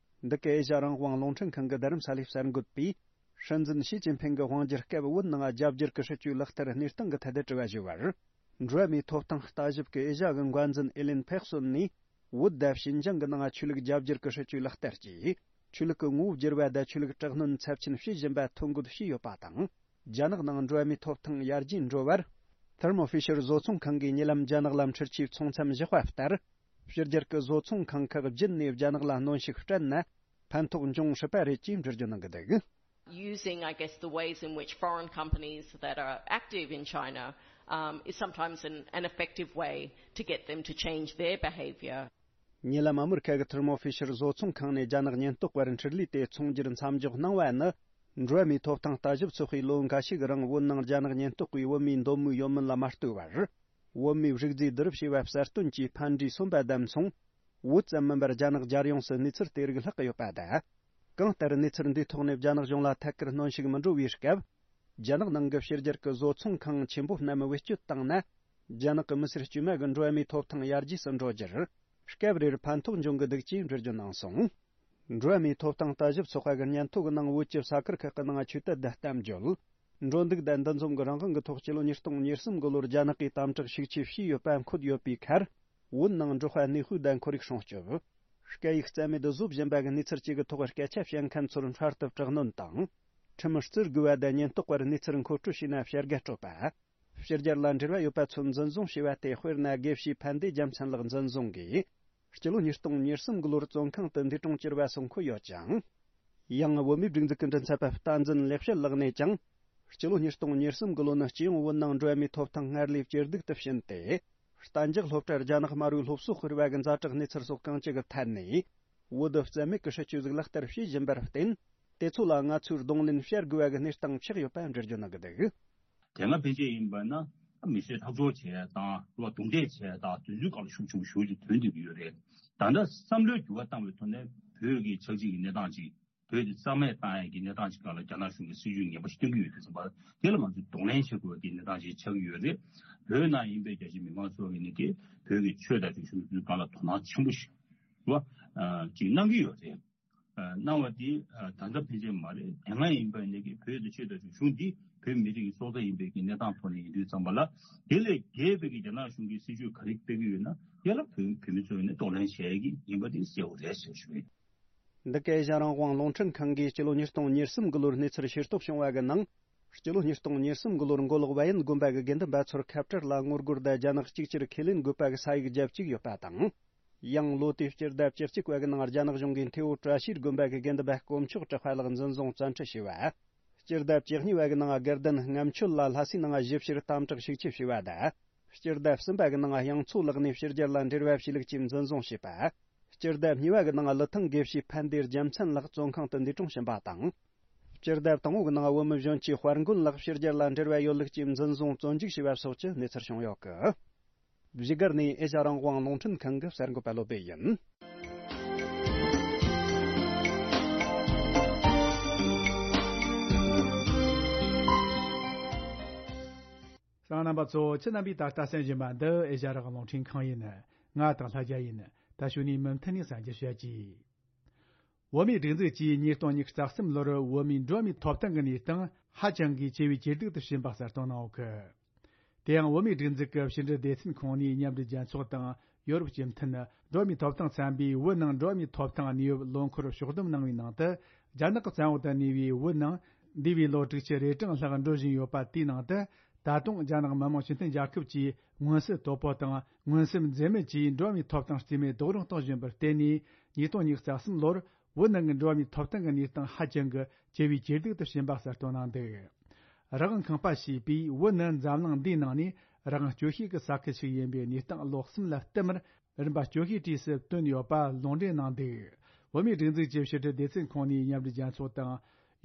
འདི་གའི་ཨེ་ཤ་ཡ་རང་དབང་རླུང་འཕྲིན་ཁང་གི་རྡ་རམ་ས་ལའི་གསར་འགོད་པས། སྲིད་འཛིན་ཞི་ཅིན་ཕིང་གི་དབང་སྒྱུར་སྐབས་བོད་ནང་རྒྱ་བསྒྱུར་གྱི་སྲིད་ཇུས་ལག་བསྟར་གནས་སྟངས་ཀྱི་ཐད་དུ་དྲི་བ་ཞུས་པར། འགྲོ་བ་མིའི་ཐོབ་ཐང་ལྟ་ཞིབ་ཀྱི་ཨེ་ཤ་ཡ་གི་འགན་འཛིན་ཨེ་ལིན་ཕེག་སོན་ནས། བོད་དང་ཞིན་ཅང་གི་ནང་ཆོས་ལུགས་རྒྱ་བསྒྱུར་གྱི་སྲིད་ཇུས་ལག་བསྟར་གྱིས། ཆོས་ལུགས་ཀྱི་ངོ་བོ་བསྒྱུར་བ་དང་ཆོས་ལུགས་དྲག་གནོན་ཚབས་ཆེན་བྱེད་བཞིན་པ་ཐོ་འགོད་བྱས་ཡོད་པ་དང་། རྒྱ་ནག་ནང་འགྲོ་བ་མིའི་ཐོབ་ཐང་ཡར་རྒྱས་འགྲོ་བར། ཐེར་མོ་ཧྥི་ཤར་བཟོ་ཚོང་ཁང་གིས་ཉེ་ལམ་རྒྱ་ནག་ལ་འཕྲུལ་ཆས་ཚོང་མཚམས་བཞག་པ་ལྟར། ཕྱི་རྒྱལ་གྱི་བཟོ་ཚོང་ཁང་ཁག་བརྒྱུད་ནས་རྒྱ་ནག་ལ་གནོན་ཤུགས་སྤྲད་ན། ཕན་ཐོགས་འབྱུང་སྲིད་པ་རེད་ཅེས་འགྲེལ་བརྗོད་གནང་གི་འདུག། Using, I guess, the ways in which foreign companies that are active in China, um, is sometimes an, an effective way to get them to change their behavior. ཉེ་ལམ་ཨ་མི་རི་ཁ་གི་ཐེར་མོ་ཧྥི་ཤར་བཟོ་ཚོང་ཁང་ནས་རྒྱ་ནག་ཉེན་རྟོག་པར་འཕྲུལ་ལས་དེ་ཚོང་སྒྱུར་མཚམས་འཇོག་གནང་བ་ནི། འགྲོ་བ་མིའི་ཐོབ་ཐང་ལྟ་ཞིབ་ཚོགས་པས་ལོ་འགའ་ཤས་ཀྱི་རིང་བོད་ནང་རྒྱ་ནག་ཉེན་རྟོག་པས་བོད་མིའི་འདོད་མོས་ཡོད་མིན་ལ་མ་ལྟོས་པར། བོད་མིའི་རིག་རྫས་བསྡུ་རུབ་བྱས་པ་གསལ་སྟོན་གྱིས་ཕན་འབྲས་སོན་པ་དང་མཚུངས། བོད་ཙམ་མིན་པར་རྒྱ་ནག་རྒྱལ་ཡོངས་སུ་གནས་ཚུལ་དེ་རིགས་ལྷག་གི་ཡོད་པ་དང་། གང་ལྟར་གནས་ཚུལ་འདིའི་ཐོག་ནས་རྒྱ་ནག་གཞུང་ལ་ཐད་ཀར་གནོན་ཤུགས་མི་འགྲོ་བའི་སྐབས། རྒྱ་ནག་ནང་གི་ཕྱི་རྒྱལ་གྱི་བཟོ་ཚོང་ཁང་ཆེན་པོ་རྣམས་བེད་སྤྱོད་བཏང་ན། རྒྱ་ནག་གི་མི་སེར་དཀྱུས་མ་གི་འགྲོ་བ་མིའི་ཐོབ་ཐང་ཡར་རྒྱས་སུ་འགྲོ་རྒྱུར། སྐབས་རེར་ཕན་ཐོགས་འབྱུང་གི་འདུག་ཅེས་འགྲེལ་བརྗོད་གནང་སོང་། འགྲོ་བ་མིའི་ཐོབ་ཐང་ལྟ་ཞིབ་ཚོགས་པ་གི་སྙན་ཐོ་གི་ནང་བོད་ཀྱི་ས་ཁུལ་ཁག་གི་ནང་ཆོས་དད་དང་གཏམ་བརྗོད། འགྲོ་འདུག་དང་འདུ་འཛོམས་ཀྱི་རང་དབང་གི་ཐོག་སྤྱི་ལོ་ཉིས་སྟོང་ཉེར་གསུམ་གི་ལོར་རྒྱ་ནག་གིས་དམ་དྲག་ཤུགས་ཆེ་བྱས་ཡོད་པ་འཁོད་ཡོད་པའི་ཁར། བོད་ནང་འབྲོག་པ་གནས་སྤོས་དང་ཁོར་ཡུག་སྲུང་སྐྱོབ། སྐད་ཡིག་རྩ་མེད་དུ་བཟོ་བཞིན་པ་གི་གནས་ཚུལ་བཅས་ཀྱི་ཐོག་སྐད་ཆ་བཤད་མཁན་ཚོར་འཕྲལ་དུ་དྲག་གནོན་དང་། ཁྲིམས་བརྩི་དགོས་པ་དང་ཉེན་རྟོག་པར་གནས་ཚུལ་མཁོ་སྤྲོད་བྱས་ན་བྱ་དགའ་སྤྲོད་པ། ཕྱི་རྒྱལ་ལ་འབྲེལ་བ་ཡོད་པ་ཚོ་འཛིན་བཟུང་བྱས་པ་སྟེ། དཔེར་ན་དགེ་བཤེས་ཕན་བདེ་རྒྱལ་མཚན་ལགས་འཛིན་བཟུང་གིས། སྤྱི་ལོ་ཉིས་སྟོང་ཉེར་གསུམ་གི་ལོར་བཙོན་ཁང་དུ་འདས་གྲོངས་གྱུར་བ་སོགས་འཁོད་ཡོད་ཅིང་། ཡང་བོད་མིའི་སྒྲིག་འཛུགས་ཀྱི་མགྲིན་ཚབ་པ་བསྟན་འཛིན་ལེགས་བཤད་ལགས་ནས་ཀྱང་། སྤྱི་ལོ་ཉིས་སྟོང་ཉེར་གསུམ་གི་ལོ་ནི་སྤྱི་ཡོངས་བོད་ནང་འགྲོ་བ་མིའི་ཐོབ་ཐང་སྔར་ལས་ཇེ་སྡུག་ཏུ་ཕྱིན་ཏེ། གཏན་འཇགས་སློབ་གྲྭར་རྒྱ་ནག་དམར་པོའི་སློབ་གསོ་སྤེལ་བ་གི་ཛ་དྲག་གནས་ཚུལ་སོགས་གང་ཅི་གི་ཐད་ནས། བོད་དུ་རྩ་མེད་ཀྱི་སྲིད་ཇུས་ཟིག་ལག་བསྟར་བྱེད་བཞིན་པར་བརྟེན། དེ་ཚོ་ལ་ང་ཚོས་གདོང་ལེན་བྱ་དགོས་པ་གི་གནས་སྟངས་ཆགས་ཡོད་པ་འགྲེལ་བརྗོད་གནང་གི་འདུག། དེ་སྔ་ཕན་ཆད་ཡིན་པ་ན་མི་གསོད་ཁྲག་སྦྱོར་བྱས་དང་རྡུང་རྡེག་བྱས་དང་དེ་ཚོའི་སྐབས་ལ་ཤུགས་ཆེན་པོ་ཞེ་པོ་ཅིག་ཐོན་བསྡད་ཀྱི་ཡོད་རེད། ད་ལྟ་བསམ་བློའི་འགྱུར་བ་བཏང་བའི་ཐོག་ནས་བོད་ཀྱི་ཆགས་འཇིག་གི་གནས་སྟངས་ཅིག་བོད་དེ་རྩ་མེད་བཏང་ཡས་ཀྱི་གནས་སྟངས་ཅིག་སྒང་ལ་རྒྱ་ནག་གཞུང་གིས་སྲིད་ཇུས་ངན་པ་ཞིག་སྟོན་གྱི་ཡོད་དུས་ཙམ་པ་དེ་ལ་ང་ཚོས་གདོང་ལེན་བྱེད་དགོས་པའི་གནས་སྟངས་ཅིག་ཆགས་ཀྱི་ཡོད་རེད། བོད་ནང་ཡིན་པའི་རྒྱ་ཆེའི་མི་མང་ཚོ་གིས་ནི་དེ་བོད་ཀྱི་ཆོས་དང་རིག་གཞུང་དེ་ཚོའི་སྒང་ལ་དོ་སྣང་ཆེན་པོ་ཞིག་བ་ཅིག་གནང་གི་ཡོད་རེད། གནང་བ་དེ་ད་ལྟ་ཕན་ཆད་མ་རེད། དེ་སྔ་ཡིན་པ་ནི་གི་བོད་དེ་ཆོས་དང་རིག་གཞུང་འདི་བོད་མི་རིགས་ཀྱི་སྲོག་རྩ་ཡིན་པའི་གི་གནས་སྟངས་ཐོག་ནས་ཡིན་དུས་ཙམ་པ་ལ་དེ་ལས་བརྒལ་བའི་གི་རྒྱ་ནག་གཞུང་གི་སྲིད་ཇུས་ག་རེ་སྤེལ་གི་ཡོད་ན་དེ་ལ་བོད་བོད་མི་ཚོས་ནི་གདོང་ལེན་བྱེད་ཀྱི་ཡིན་པ་དེ་གསལ་པོ་རེད་ཟེར་ཞུ་གི་ཡིན། འདི་ག་ཨེ་ཤ་རང་དབང་རླུང་འཕྲིན་ཁང་གིས་སྤྱི་ལོ་ཉིས་སྟོང་ཉེར་གསུམ་གི་ལོར་གནས་ཚུལ་ཤེས་རྟོགས་བྱུང་བ་གི་ནང་། སྤྱི་ལོ་ཉིས་སྟོང་ཉེར་གསུམ་གི་ལོར་མགོ་ལོག་བལ་ཡུལ་དགོན་པ་གི་དགེ་འདུན་པ་ཚོར་ཁ་བྲལ་ལ་ངོ་རྒོལ་དང་རྒྱ་ནག་གཅིག་གྱུར་ཁས་ལེན་དགོས་པ་གི་ས་ཡིག་བརྒྱབ་བཅུག་ཡོད་པ་དང་། ཡང་ལོ་དེའི་སྤྱི་ཟླ་བཅུ་གཅིག་པ་གི་ནང་རྒྱ་ནག་གཞུང་གིས་མཐེ་བོ་བཀྲ་ཤིས་དགོན་པ་གི་དགེ་འདུན་པ་དཀོན་མཆོག་གྲགས་པ་ལགས་འཛིན་བཟུང་བཙན་ཁྲིད་བྱས་པ། སྤྱི་ཟླ་བཅུ་གཉིས་པ་གི་ནང་དགའ་ལྡན་རྔམ་ཆོད་ལ་ལྷ་སའི་ནང་ཞིབ་བཤེར་དམ་དྲག་ཤུགས་ཆེ་བྱས་པ་དང་། སྤྱི་ཟླ་གསུམ་པ་གི་ནང་དབྱངས་མཚོ་ལགས་ནས་ཕྱི་རྒྱལ་ལ་འབྲེལ་བ་བྱས་ལུགས་ཀྱིས་འཛིན་བཟུང་བྱས་པ། སྤྱི་ཟླ་གཉིས་པ་གི་ནང་ཀླུ་ཐང་དགེ་བཤེས་ཕན་བདེ་རྒྱལ་མཚན་ལགས་བཙོན་ཁང་དུ་འདས་གྲོངས་ཕྱིན་པ་དང་། སྤྱི་ཟླ་དང་པོ་གི་ནང་བོད་མི་གཞོན་སྐྱེས་དཔལ་མགོན་ལགས་ཕྱི་རྒྱལ་ལ་འབྲེལ་བ་ཡོད་ལུགས་ཀྱིས་འཛིན་བཟུང་བཙོན་འཇུག་བྱས་པ་སོགས་ཀྱི་གནས་ཚུལ་བྱུང་ཡོད་གི། བཞུགས་སྒར་ནས་ཨེ་ཤ་རང་དབང་རླུང་འཕྲིན་ཁང་གི་གསར་འགོད་པ་བློ་བདེ་ཡིན། གསན་མཁན་རྣམ་པ་ཚོ། ཁྱེད་རྣམ་པས་ད་ལྟ་གསན་བཞིན་པ་འདི་ཨེ་ཤ་རང་དབང་རླུང་འཕྲིན་ཁང་ཡིན། ང་དང་ལྷ་རྒྱལ་ཡིན། ད་གཞུག་ནས་མུ་མཐུད་ནས་གསན་རྒྱུ་བྱ་གྱིས། བོད་མིའི་སྒྲིག་འཛུགས་ཀྱིས་ཉིས་སྟོང་ཉི་ཤུ་རྩ་གསུམ་ལོར་བོད་མིའི་འགྲོ་བ་མིའི་ཐོབ་ཐང་གི་གནས་སྟངས་ཧ་ཅང་གི་ཇེ་བས་ཇེ་སྡུག་ཏུ་ཕྱིན་པ་གསལ་སྟོན་གནང་ཡོད་གི། དེ་ཡང་བོད་མིའི་སྒྲིག་འཛུགས་ཀྱི་ཕྱི་འབྲེལ་སྡེ་ཚན་ཁོངས་ནས་མཉམ་འབྲེལ་རྒྱལ་ཚོགས་དང་ཡོ་རོབ་སྤྱི་མཐུན་འགྲོ་བ་མིའི་ཐོབ་ཐང་ཚན་པས་བོད་ནང་འགྲོ་བ་མིའི་ཐོབ་ཐང་གནས་བབ་ལོ་འཁོར་ཕྱོགས་བསྡོམས་གནང་བའི་ནང་དུ། རྒྱ་ནག་གི་བཙན་འོག་ཏུ་གནས་པའི་བོད་ནང་འདས་པའི་ལོ་དྲུག་ཅུ་རེ་གྲངས་ལྷག་འགྲོ་བཞིན་ཡོད་པ་དེའི་ནང་དུ། ད་དུང་རྒྱ་ནག་མི་དམངས་སྤྱི་མཐུན་རྒྱལ་ཁབ་ཀྱིས་མངོན་གསལ་དོད་པོ་དང་མངོན་གསལ་འཛེམ་མེད་ཀྱིས་འགྲོ་བ་མིའི་ཐོབ་ཐང་རྩིས་མེད་རྡོག་རོལ་གཏོང་བཞིན་པར་བརྟེན་ནས། ཉིས་སྟོང་ཉི་ཤུ་རྩ་གསུམ་ལོར་བོད་ནང་གི་འགྲོ་བ་མིའི་ཐོབ་ཐང་གི་གནས་སྟངས་ཧ་ཅང་གི་ཇེ་བས་ཇེ་སྡུག་ཏུ་ཕྱིན་པ་གསལ་སྟོན་གནང་འདུག། རང་དབང་ཁང་པ་ཞེས་པས་བོད་ནི་འཛམ་གླིང་འདིའི་ནང་ནས་རང་དབང་སྐྱོ་ཤོས་ཀྱི་ས་ཁུལ་ཞིག་ཡིན་པའི་གནས་སྟངས་ལོ་གསུམ་ལ་བསྟུད་མར་རིམ་པ་སྐྱོ་ཤོས་གྲས་སུ་བཏོན་ཡོད་པ་ལུང་འདྲེན་གནང་འདུག། བོད་མིའི་སྒྲིག་འཛུགས་ཀྱི་ཕྱི་དྲིལ་སྡེ་ཚན་ཁོངས་ནས་མཉམ་འབྲེལ་རྒྱལ་ཚོགས་དང་།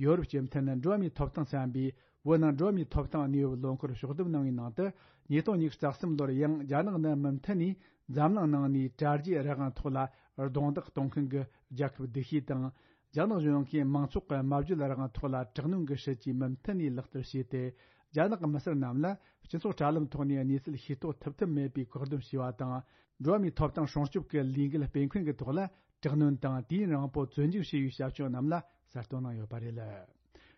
ཡོ་རོབ་སྤྱི་མཐུན་འགྲོ་བ་མིའི་ཐོབ་ཐང་ཚན་པས་བོད་ནང་འགྲོ་བ་མིའི་ཐོབ་ཐང་གནས་བབ་ལོ་འཁོར་ཕྱོགས་བསྡོམས་གནང་བའི་ནང་དུ། ཉིས་སྟོང་ཉི་ཤུ་རྩ་གསུམ་ལོར་ཡང་རྒྱ་ནག་ནི་མུ་མཐུད་ནས་འཛམ་གླིང་ནང་ནས་དྲ་རྒྱའི་རང་དབང་ཐོག་ལ་རྡུང་རྡེག་གཏོང་མཁན་གྱི་རྒྱལ་ཁབ་སྡུག་ཤོས་དང་། རྒྱ་ནག་གཞུང་གིས་མང་ཚོགས་ཀྱི་སྨྲ་བརྗོད་རང་དབང་ཐོག་ལ་དྲག་གནོན་གྱི་སྲིད་ཇུས་མུ་མཐུད་ནས་ལག་བསྟར་བྱས་ཏེ། རྒྱ་ནག་གི་མི་སེར་རྣམས་ལ་སྤྱི་ཚོགས་དྲ་ལམ་ཐོག་ནས་གནས་ཚུལ་ཤེས་རྟོགས་ཐུབ་ཐབས་མེད་པའི་བཀག་སྡོམ་བྱས་པ་དང་། འགྲོ་བ་མིའི་ཐོབ་ཐང་སྲུང་སྐྱོབ་ཀྱི་ལས་འགུལ་སྤེལ་མཁན་གྱི་ཐོག་ལ་དྲག་གནོན་དང་དུས་ཡུན་རིང་པོ་བཙོན་འཇུག་བྱས་པའི་བྱ་སྤྱོད་རྣམས་ལ་གསལ་སྟོན་གནང་ཡོད་པ་རེད།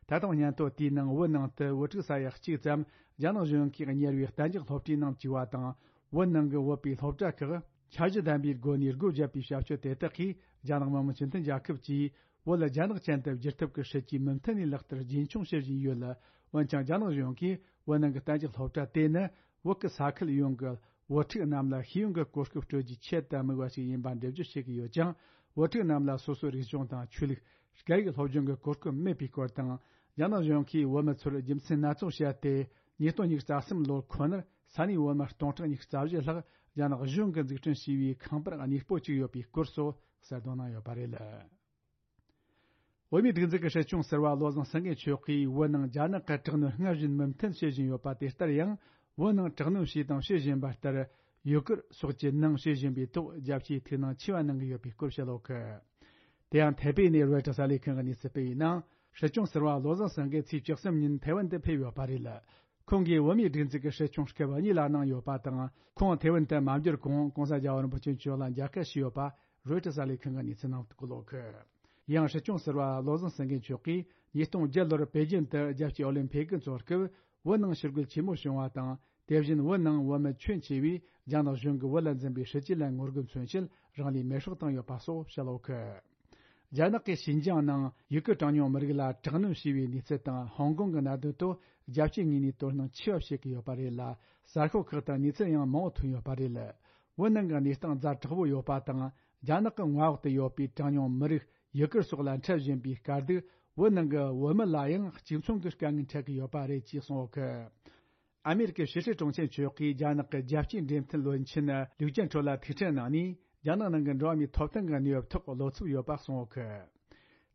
ད་དུང་སྙན་ཐོ་དེའི་ནང་བོད་ནང་དུ་བོད་ཕྲུག་ས་ཡ་གཅིག་ཙམ་རྒྱ་ནག་གཞུང་གིས་གཉེར་བའི་གཏན་འཇགས་སློབ་གྲྭའི་ནང་བཅུག་པ་དང་། བོད་ནང་གི་བོད་པའི་སློབ་གྲྭ་ཁག་འཆར་གཞི་ལྡན་པའི་སྒོ་ནས་སྒོ་བརྒྱབ་པའི་བྱ་སྤྱོད་དེ་དག་གིས་རྒྱ་ནག་མི་དམངས་སྤྱི་མཐུན་རྒྱལ་ཁབ་ཀྱིས་བོད་ལ་རྒྱ་ནག་ཅན་དུ་བསྒྱུར་ཐབས་ཀྱི་སྲིད་ཇུས་མུ་མཐུད་ནས་ལག་བསྟར་རྒྱུན་འཁྱོངས་བྱེད་བཞིན་ཡོད་ལ། འོན་ཀྱང་རྒྱ་ནག་གཞུང་གིས་བོད་ནང་གི་གཏན་འཇགས་སློབ་གྲྭ་དེ་ནི་བོད་ཀྱི་ས་ཁུལ་ཡོངས་ཀྱི་བོད་ཕྲུག་རྣམས་ལ་ཤེས་ཡོན་གྱི་གོ་སྐབས་སྤྲོད་རྒྱུའི་ཆེད་དུ་དམིགས་པ་ཞིག་ཡིན་པ་འགྲེལ་བརྗོད་བྱེད་ཀྱི་ཡོད་ཅིང་། བོད་ཕྲུག་རྣམས་ལ་སོ་སོའི་རིག་གཞུང་དང་ཆོས་ལུགས། སྐད་ཡིག་སློབ་སྦྱོང་གི་གོ་སྐབས་མེད་པའི་སྐོར་དང་། རྒྱ་ནག་གཞུང་གིས་བོད་མི་ཚོར་རྒྱུ་མཚན་སྣ་ཚོགས་བཤད་དེ། ཉིས་སྟོང་ཉི་ཤུ་རྩ་གསུམ་ལོར་ཁོ་ནར་ས་གནས་བོད་མི་སྟོང་ཕྲག་ཉི་ཤུ་རྩ་བཞི་ལྷག་རྒྱ་ནག་གཞུང་གིས་འཛུགས་སྐྲུན་བྱས་པའི་ཁང་པར་གནས་སྤོ་བཅུག་ཡོད་པའི་སྐོར་སོགས་གསལ་སྟོན་གནང་ཡོད་པ་རེད། བོད་མིའི་སྒྲིག་འཛུགས་ཀྱི་སྲིད་སྐྱོང་ཟུར་པ་བློ་བཟང་སེང་གེ་མཆོག་གིས་བོད་ནང་རྒྱ་ནག་གི་དྲག་གནོན་སྔར་བཞིན་མུ་མཐུད་བྱེད་བཞིན་ཡོད་པ་དེ་ལྟར་ཡང་། བོད་ནང་དྲག་གནོན་བྱས་དང་བྱེད་བཞིན་པ་ལྟར། ཡུ་གུར་སོགས་ཀྱི་ནང་བྱེད་བཞིན་པའི་ཐོག་རྒྱ་ཆེའི་ཐུགས་སྣང་ཆེ་བ་གནང་གི་ཡོད་པའི་སྐོར་བཤད་ཡོད་གི། དེ་ཡང་ཐའེ་པེ་ནས་རོའི་ཊར་གསར་ལས་ཁང་གིས་གནས་ཚུལ་སྤེལ་བའི་ནང་། སྲིད་སྐྱོང་ཟུར་པ་བློ་བཟང་སེང་གེ་ཚེས་བཅུ་གསུམ་ཉིན་ཐའེ་ཝན་དུ་ཕེབས་ཡོད་པ་རེད། ཁོང་གིས་བོད་མིའི་སྒྲིག་འཛུགས་ཀྱི་སྲིད་སྐྱོང་སྐབས་གཉིས་ལ་གནང་ཡོད་པ་དང་། ཁོང་ཐའེ་ཝན་དུ་མ་འབྱོར་གོང་༧གོང་ས་༧རྒྱལ་བ་རིན་པོ་ཆེ་མཆོག་ལ་མཇལ་ཁ་ཞུས་ཡོད་པ་རོའི་ཊར་གསར་ལས་ཁང་གིས་གནས་ཚུལ་གནང་འདུག་ལོ་གི། ། ཡང་སྲིད་སྐྱོང་ཟུར་པ་བློ་བཟང་སེང་གེ་མཆོག་གིས་ཉིས་སྟོང་བརྒྱད་ལོར་པེ་ཅིན་དུ་རྒྱལ་སྤྱིའི་ཨོ་ལིམ་ཕིག་གི་ཚོགས་སྐབས་བོད་ནང་ཕྱིར་རྒོལ་ཆེན་མོ་བྱུང་བ་དང་། དེ་བཞིན་བོད་ནང་བོད་མི་ཁྱོན་ཆེ་བས་རྒྱ་ནག་གཞུང་གིས་བོད་ལ་འཛིན་པའི་སྲིད་བྱུས་ལ་ངོ་རྒོལ་མཚོན་ཆེད་རང་ལུས་མེར་སྲེག་བཏང་ཡོད་པ་སོགས་བཤད་ཡོད་གི། རྒྱ་ནག་གིས་ཞིན་ཅང་ནང་ཡུ་གུར་གྲངས་ཉུང་མི་རིགས་ལ་དྲག་གནོན་བྱས་པའི་གནས་ཚུལ་དང་། ཧོང་ཀོང་གི་གནད་དོན་ཐོག་རྒྱལ་སྤྱིའི་ངོས་ནས་དོ་སྣང་ཆེ་བ་བྱེད་ཀྱི་ཡོད་པ་རེད་ལ། གསར་ཤོག་ཁག་དང་གནས་ཚུལ་ཡང་མང་བོ་ཐོན་ཡོད་པ་རེད། བོད་ནང་གི་གནས་སྟངས་ཛ་དྲག་པོ་ཡོད་པ་དང་། རྒྱ་ནག་གི་མངའ་འོག་ཏུ་ཡོད་པའི་གྲངས་ཉུང་མི་རིགས་ཡུ་གུར་སོགས་ལ་འཕྲད་བཞིན་པའི་དཀའ་སྡུག་བོད་ནང་གི་བོད་མི་ལ་ཡང་གཅིག་མཚུངས་ཀྱི་དཀའ་ངལ་འཕྲད་ཀྱི་ཡོད་པ་རེད་ཅེས་གསུངས་ཡོད་གི། ཨ་མེ་རི་ཀའི་ཕྱི་སྲིད་དྲུང་ཆེ་མཆོག་གིས་རྒྱ་ནག་གི་རྒྱལ་སྤྱིའི་འབྲེལ་མཐུད་བློན་ཆེན་ལིའུ་ཅན་ཁྲོ་ལ་ཐུག་འཕྲད་གནང་ནས། རྒྱ་ནག་ནང་གི་འགྲོ་བ་མིའི་ཐོབ་ཐང་གི་གནས་བབ་ཐོག་བློ་འཚབ་ཡོད་པ་གསུངས་ཡོད་གི།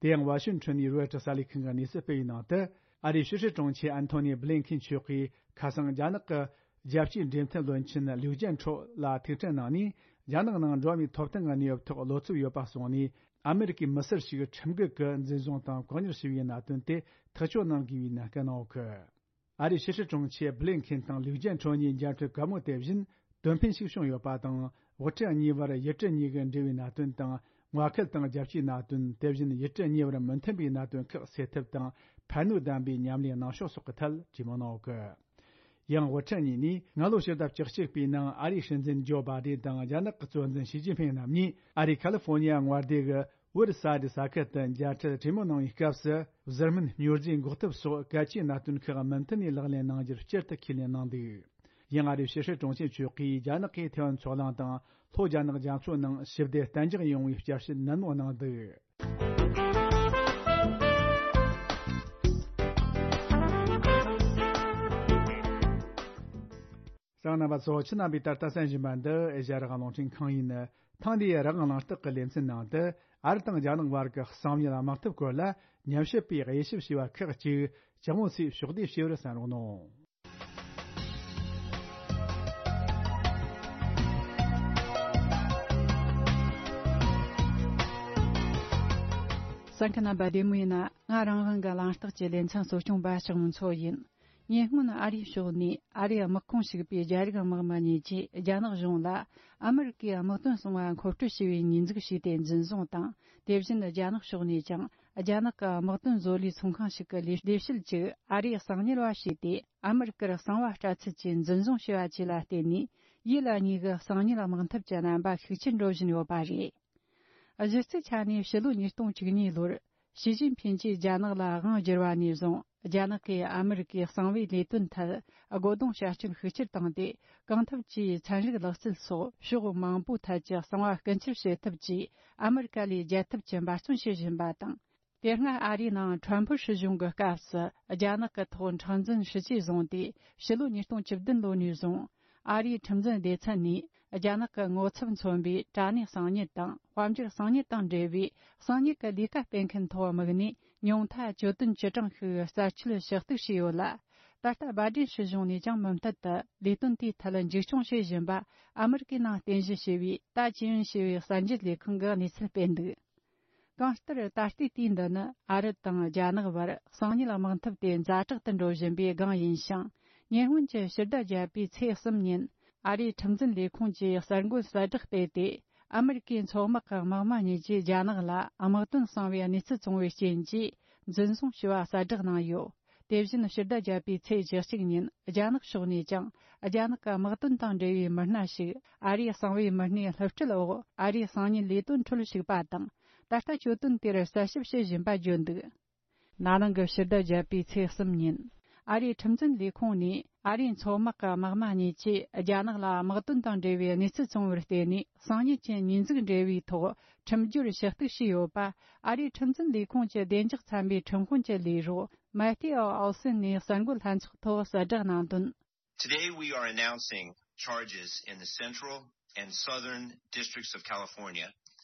དེ་ཡང་ཝ་ཤིང་ཊོན་ནས་རོའི་ཊར་གསར་ལས་ཁང་གིས་གནས་ཚུལ་སྤེལ་བའི་ནང་དུ། ཨ་རིའི་ཕྱི་སྲིད་དྲུང་ཆེ་ཨན་ཐོ་ནི་བྷི་ལིན་ཁིན་མཆོག་གིས་ཁ་སང་རྒྱ་ནག་གི་རྒྱལ་སྤྱིའི་འབྲེལ་མཐུད་བློན་ཆེན་ལིའུ་ཅན་ཁྲོ་ལ་ཐུག་འཕྲད་གནང་ནས། རྒྱ་ནག་ནང་འགྲོ་བ་མིའི་ཐོབ་ཐང་གི་གནས་བབ་ཐོག་བློ་འཚབ་ཡོད་པ་གསུངས་ནས། ཨ་མེ་རི་ཀའི་མི་སེར་ཞིག་ཁྲིམས་འགལ་གྱི་འཛིན་བཟུང་དང་བཀག་ཉར་བྱས་པའི་གནད་དོན་དེ་ཐག་གཅོད་གནང་དགོས་པའི་གནད་འགག་གནང་ཡོད་གི། ཨ་རིའི་ཕྱི་སྲིད་དྲུང་ཆེ་བྷི་ལིན་ཁིན་དང་ལིའུ་ཅན་ཁྲོ་གཉིས་མཇལ་འཕྲད་གད་མོ་དེ་བཞིན་དོན་ཕན་ཞིག་བྱུང་ཡོད་པ་དང་། དབུ་ཁྲིད་གཉིས་བར་ཡུལ་གྲུ་གཉིས་ཀྱི་འབྲེལ་བའི་གནད་དོན་དང་། མངའ་ཁུལ་དང་རྒྱལ་སྤྱིའི་གནད་དོན། དེ་བཞིན་ཡུལ་གྲུ་གཉིས་བར་མི་མཐུན་པའི་གནད་དོན་ཁག་སེལ་ཐབས་དང་། ཕན་ནུས་ལྡན་པའི་ཉམས་ལེན་གནང་ཕྱོགས་སོགས་ཀྱི་ཐད་དྲིས་མོལ་གནང་ཡོད་གི། ཡང་དབུ་ཁྲིད་གཉིས་ནས་སྔ་ལོ་ཕྱི་ཟླ་བཅུ་གཅིག་པའི་ནང་ཨ་རིའི་སྲིད་འཛིན་ཇོ་བྷ་དེན་དང་རྒྱ་ནག་གི་གཙོ་འཛིན་ཞི་ཅིན་ཕིང་རྣམ་གཉིས་ཨ་རིའི་ཁ་ལི་ཧྥོ་ནི་ཡ་མངའ་སྡེ་གི་ཝུར་ས་ཌི་ས་ཁུལ་དུ་མཇལ་འཕྲད་གྲོས་མོལ་གནང་བའི་སྐབས་སུ། བཟུར་སྨན་སྨྱོ་རྫས་འགོག་ཐབས་སོགས་གལ་ཆེའི་གནད་དོན་ཁག་མུ་མཐུད་ནས་ལག་ལེན་གནང་རྒྱུར་སྤྱིར་དུ་ཁས་ལེན་གནང་འདུག། ཡང་ཨ་རིའི་ཕྱི་སྲིད་དྲུང་ཆེ་མཆོག་གིས་རྒྱ་ནག་གིས་ཐེ་ཝན་མཚོ་གླིང་དང་ལྷོ་རྒྱ་ནག་རྒྱ་མཚོ་ནང་ཞི་བདེ་གཏན་འཇགས་ཡོང་བའི་བསྐྱར་ཞིབ་ནན་མོ་གནང་འདུག། གསན་མཁན་རྣམ་པ་ཚོ། ཁྱེད་རྣམ་པས་ད་ལྟ་གསན་བཞིན་པ་འདི་ཨེ་ཤ་ཡ་རང་དབང་རླུང་འཕྲིན་ཁང་ཡིན། ཐེངས་འདིའི་རང་དབང་གླེང་སྟེགས་ཀྱི་ལེ་ཚན་ནང་དུ། ཨ་རི་དང་རྒྱ་ནག་བར་གྱི་གསང་ཉུལ་དམག་འཐབ་སྐོར་ལ་ཉམས་ཞིབ་པས་དབྱེ་ཞིབ་བྱས་པ་ཁག་ཅིག་ཇོ་མོ་ཚོས་ཕྱོགས་བསྡུས་ཞུས་པར་གསན་རོགས་གནང་། གསན་མཁན་རྣམ་པ་བདེ་མོ་ཡིན་ན། ང་རང་དབང་གི་གླེང་སྟེགས་ཀྱི་ལེ་ཚན་གཙོ་སྐྱོང་པ་ལྕགས་མོ་མཚོ་ཡིན། ཉེ་སྔོན་ཨ་རིའི་ཕྱོགས་ནས་ཨ་རིའི་དམག་ཁོངས་ཞུགས་པའི་རྒྱ་རིགས་དམག་མི་གཉིས་ཀྱིས་རྒྱ་ནག་གཞུང་ལ་ཨ་མི་རི་ཀའི་དམག་དོན་གསང་བ་མཁོ་སྤྲོད་བྱས་པའི་ཉེས་འཛུགས་བྱས་ཏེ་འཛིན་བཟུང་དང་། དེ་བཞིན་རྒྱ་ནག་ཕྱོགས་ནས་ཀྱང་རྒྱ་ནག་གི་དམག་དོན་བཟོ་ལས་ཚོང་ཁང་ཞིག་གི་ལས་ལས་བྱེད་ཅིག་ཨ་རིའི་གསང་ཉུལ་བ་བྱས་ཏེ། ཨ་མི་རི་ཀར་གསང་བ་སྤྲད་ཚུལ་གྱི་འཛིན་བཟུང་བྱས་པ་བཅས་ལ་བརྟེན་ནས། ཡུལ་གཉིས་ཀྱི་གསང་ཉུལ་དམག་འཐབ་ཀྱི་རྣམ་པ་ཤུགས་ཆེར་འགྲོ་བཞིན་ཡོད་པ་རེད། གཞི་རྩའི་ཆ་ནས་ཕྱི་ལོ་ཉིས་སྟོང་བཅུ་གཉིས་ལོར་ཞི་ཅིན་ཕིན་གྱིས་རྒྱ་ནག་ལ་དབང་བསྒྱུར་བ་ནས་བཟུང་། རྒྱ་ནག་གིས་ཨ་མི་རི་ཀའི་གསང་བའི་ལས་དོན་ཐད་སྒོ་རྡུང་བྱ་སྤྱོད་ཤུགས་ཆེར་བཏང་སྟེ། གང་ཐབས་ཀྱིས་ཚན་རིག་ལག་རྩལ་སོགས་ཕྱོགས་མང་པོའི་ཐད་ཀྱི་གསང་བ་ཀུན་ཁྱབ་བྱེད་ཐབས་ཀྱིས་ཨ་མི་རི་ཀ་ལས་རྒྱལ་ཐབས་ཀྱི་འབད་བརྩོན་བྱེད་བཞིན་པ་དང་། དེ་སྔ་ཨ་རིའི་ནང་ཁྲོམ་ཕུར་སྲིད་གཞུང་གི་སྐབས་སུ་རྒྱ་ནག་གི་ཐོག་མཁྲེགས་འཛིན་ཤུགས་ཆེ་བཟུང་སྟེ། ཕྱི་ལོ་ཉིས་སྟོང་བཅུ་བདུན་ལོ་ནས་བཟུང་། ཨ་རིའི་ཁྲིམས་འཛིན་སྡེ་ཚན་ནས་རྒྱ་ནག་གི་ངོ་ཚབ་མཚོན་པའི་དྲ་གནས་གསང་ཉུལ་དང་། དཔལ་འབྱོར་གསང་ཉུལ་དང་འབྲེལ་བའི་གསང་ཉུལ་གྱི་ལས་ཀ་སྤེལ་མཁན་ཐོག་དམིགས་ནས། ཉུང་མཐའ་གྱོད་དོན་བཅུ་གྲངས་ཤིག་རྩད་གཅོད་ཞུ་གཏུག་བྱས་ཡོད་ལ། ད་ལྟ་བྷའི་ཌེན་སྲིད་གཞུང་ནས་ཀྱང་མུ་མཐུད་དུ་ལས་དོན་དེའི་ཐད་འཛུགས་སྐྱོང་བྱེད་བཞིན་པ། ཨ་མི་རི་ཀའི་ནང་རྟེན་གཞི་བྱས་པའི་ཏཱ་ཅི་ཡོན་ཞེས་པའི་གསར་འགྱུར་ལས་ཁང་གིས་གནས་ཚུལ་སྤེལ་འདུག། གང་ལྟར། ད་ལྟའི་དུས་འདི་ནི་ཨ་རི་དང་རྒྱ་ནག་བར་གསང་ཉུལ་དམག་འཐབ་དེ་ཛ་དྲག་ཏུ་འགྲོ་བཞིན་པའི་སྒང་ཡིན་ཞིང་། ཉེ་སྔོན་གྱི་ཕྱི་ཟླ་བརྒྱད་པའི་ཚེས་གསུམ་ཉིན། ཨ་རིའི་ཁྲིམས་འཛིན་ལས་ཁུངས་ཀྱིས་གསར་འགོད་གསལ་བསྒྲགས་སྤེལ་ཏེ། ཨ་མི་རི་ཀའི་མཚོ་དམག་གི་དམག་མི་གཉིས་ཀྱིས་རྒྱ་ནག་ལ་དམག་དོན་གསང་བའི་གནས་ཚུལ་བཙོང་བའི་རྐྱེན་གྱིས། འཛིན་བཟུང་བྱས་པ་གསལ་བསྒྲགས་གནང་ཡོད། དེ་བཞིན་ཕྱི་ཟླ་བརྒྱད་པའི་ཚེས་བཅུ་གཅིག་ཉིན། རྒྱ་ནག་ཕྱོགས་ནས་ཀྱང་རྒྱ་ནག་གི་དམག་དོན་དང་འབྲེལ་བའི་མི་སྣ་ཞིག་ཨ་རིའི་གསང་བའི་མི་སྣའི་སློབ་ཁྲིད་འོག་ཨ་རིའི་གསང་ཉུལ་ལས་དོན་ཁྲོད་ཞུགས་པ་དང་། ད་ལྟ་གྱོད་དོན་དེར་གསལ་ཞིབ་བྱེད་བཞིན་པ་བརྗོད་འདུག། ན་ནིང་གི་ཕྱི་ཟླ་བརྒྱད་པའི་ཚེས་གསུམ་ཉིན། ཨ་རིའི་ཁྲིམས་འཛིན་ལས་ཁུངས་ནས་ཨ་རིའི་མཚོ་དམག་གི་དམག་མི་གཉིས་ཀྱིས་རྒྱ་ནག་ལ་དམག་དོན་དང་འབྲེལ་བའི་གནས་ཚུལ་བཙོང་བར་བརྟེན་ནས། གསང་ཉུལ་གྱི་ཉེས་འཛུགས་འབྲེལ་བའི་ཐོག་ཁྲིམས་སྦྱོར་ཞུ་གཏུག་བྱས་ཡོད་པ། ཨ་རིའི་ཁྲིམས་འཛིན་ལས་ཁུངས་ཀྱི་བདེ་འཇགས་ཚན་པའི་ཁྲིམས་དཔོན་གྱི་ལས་རོགས་མེ་ཏི་ཨོ་ཨོལ་སན་ནས་གསར་འགོད་ལྷན་ཚོགས་ཐོག་གསལ་བསྒྲགས་གནང་དོན། Today we are announcing charges in the Central and Southern Districts of California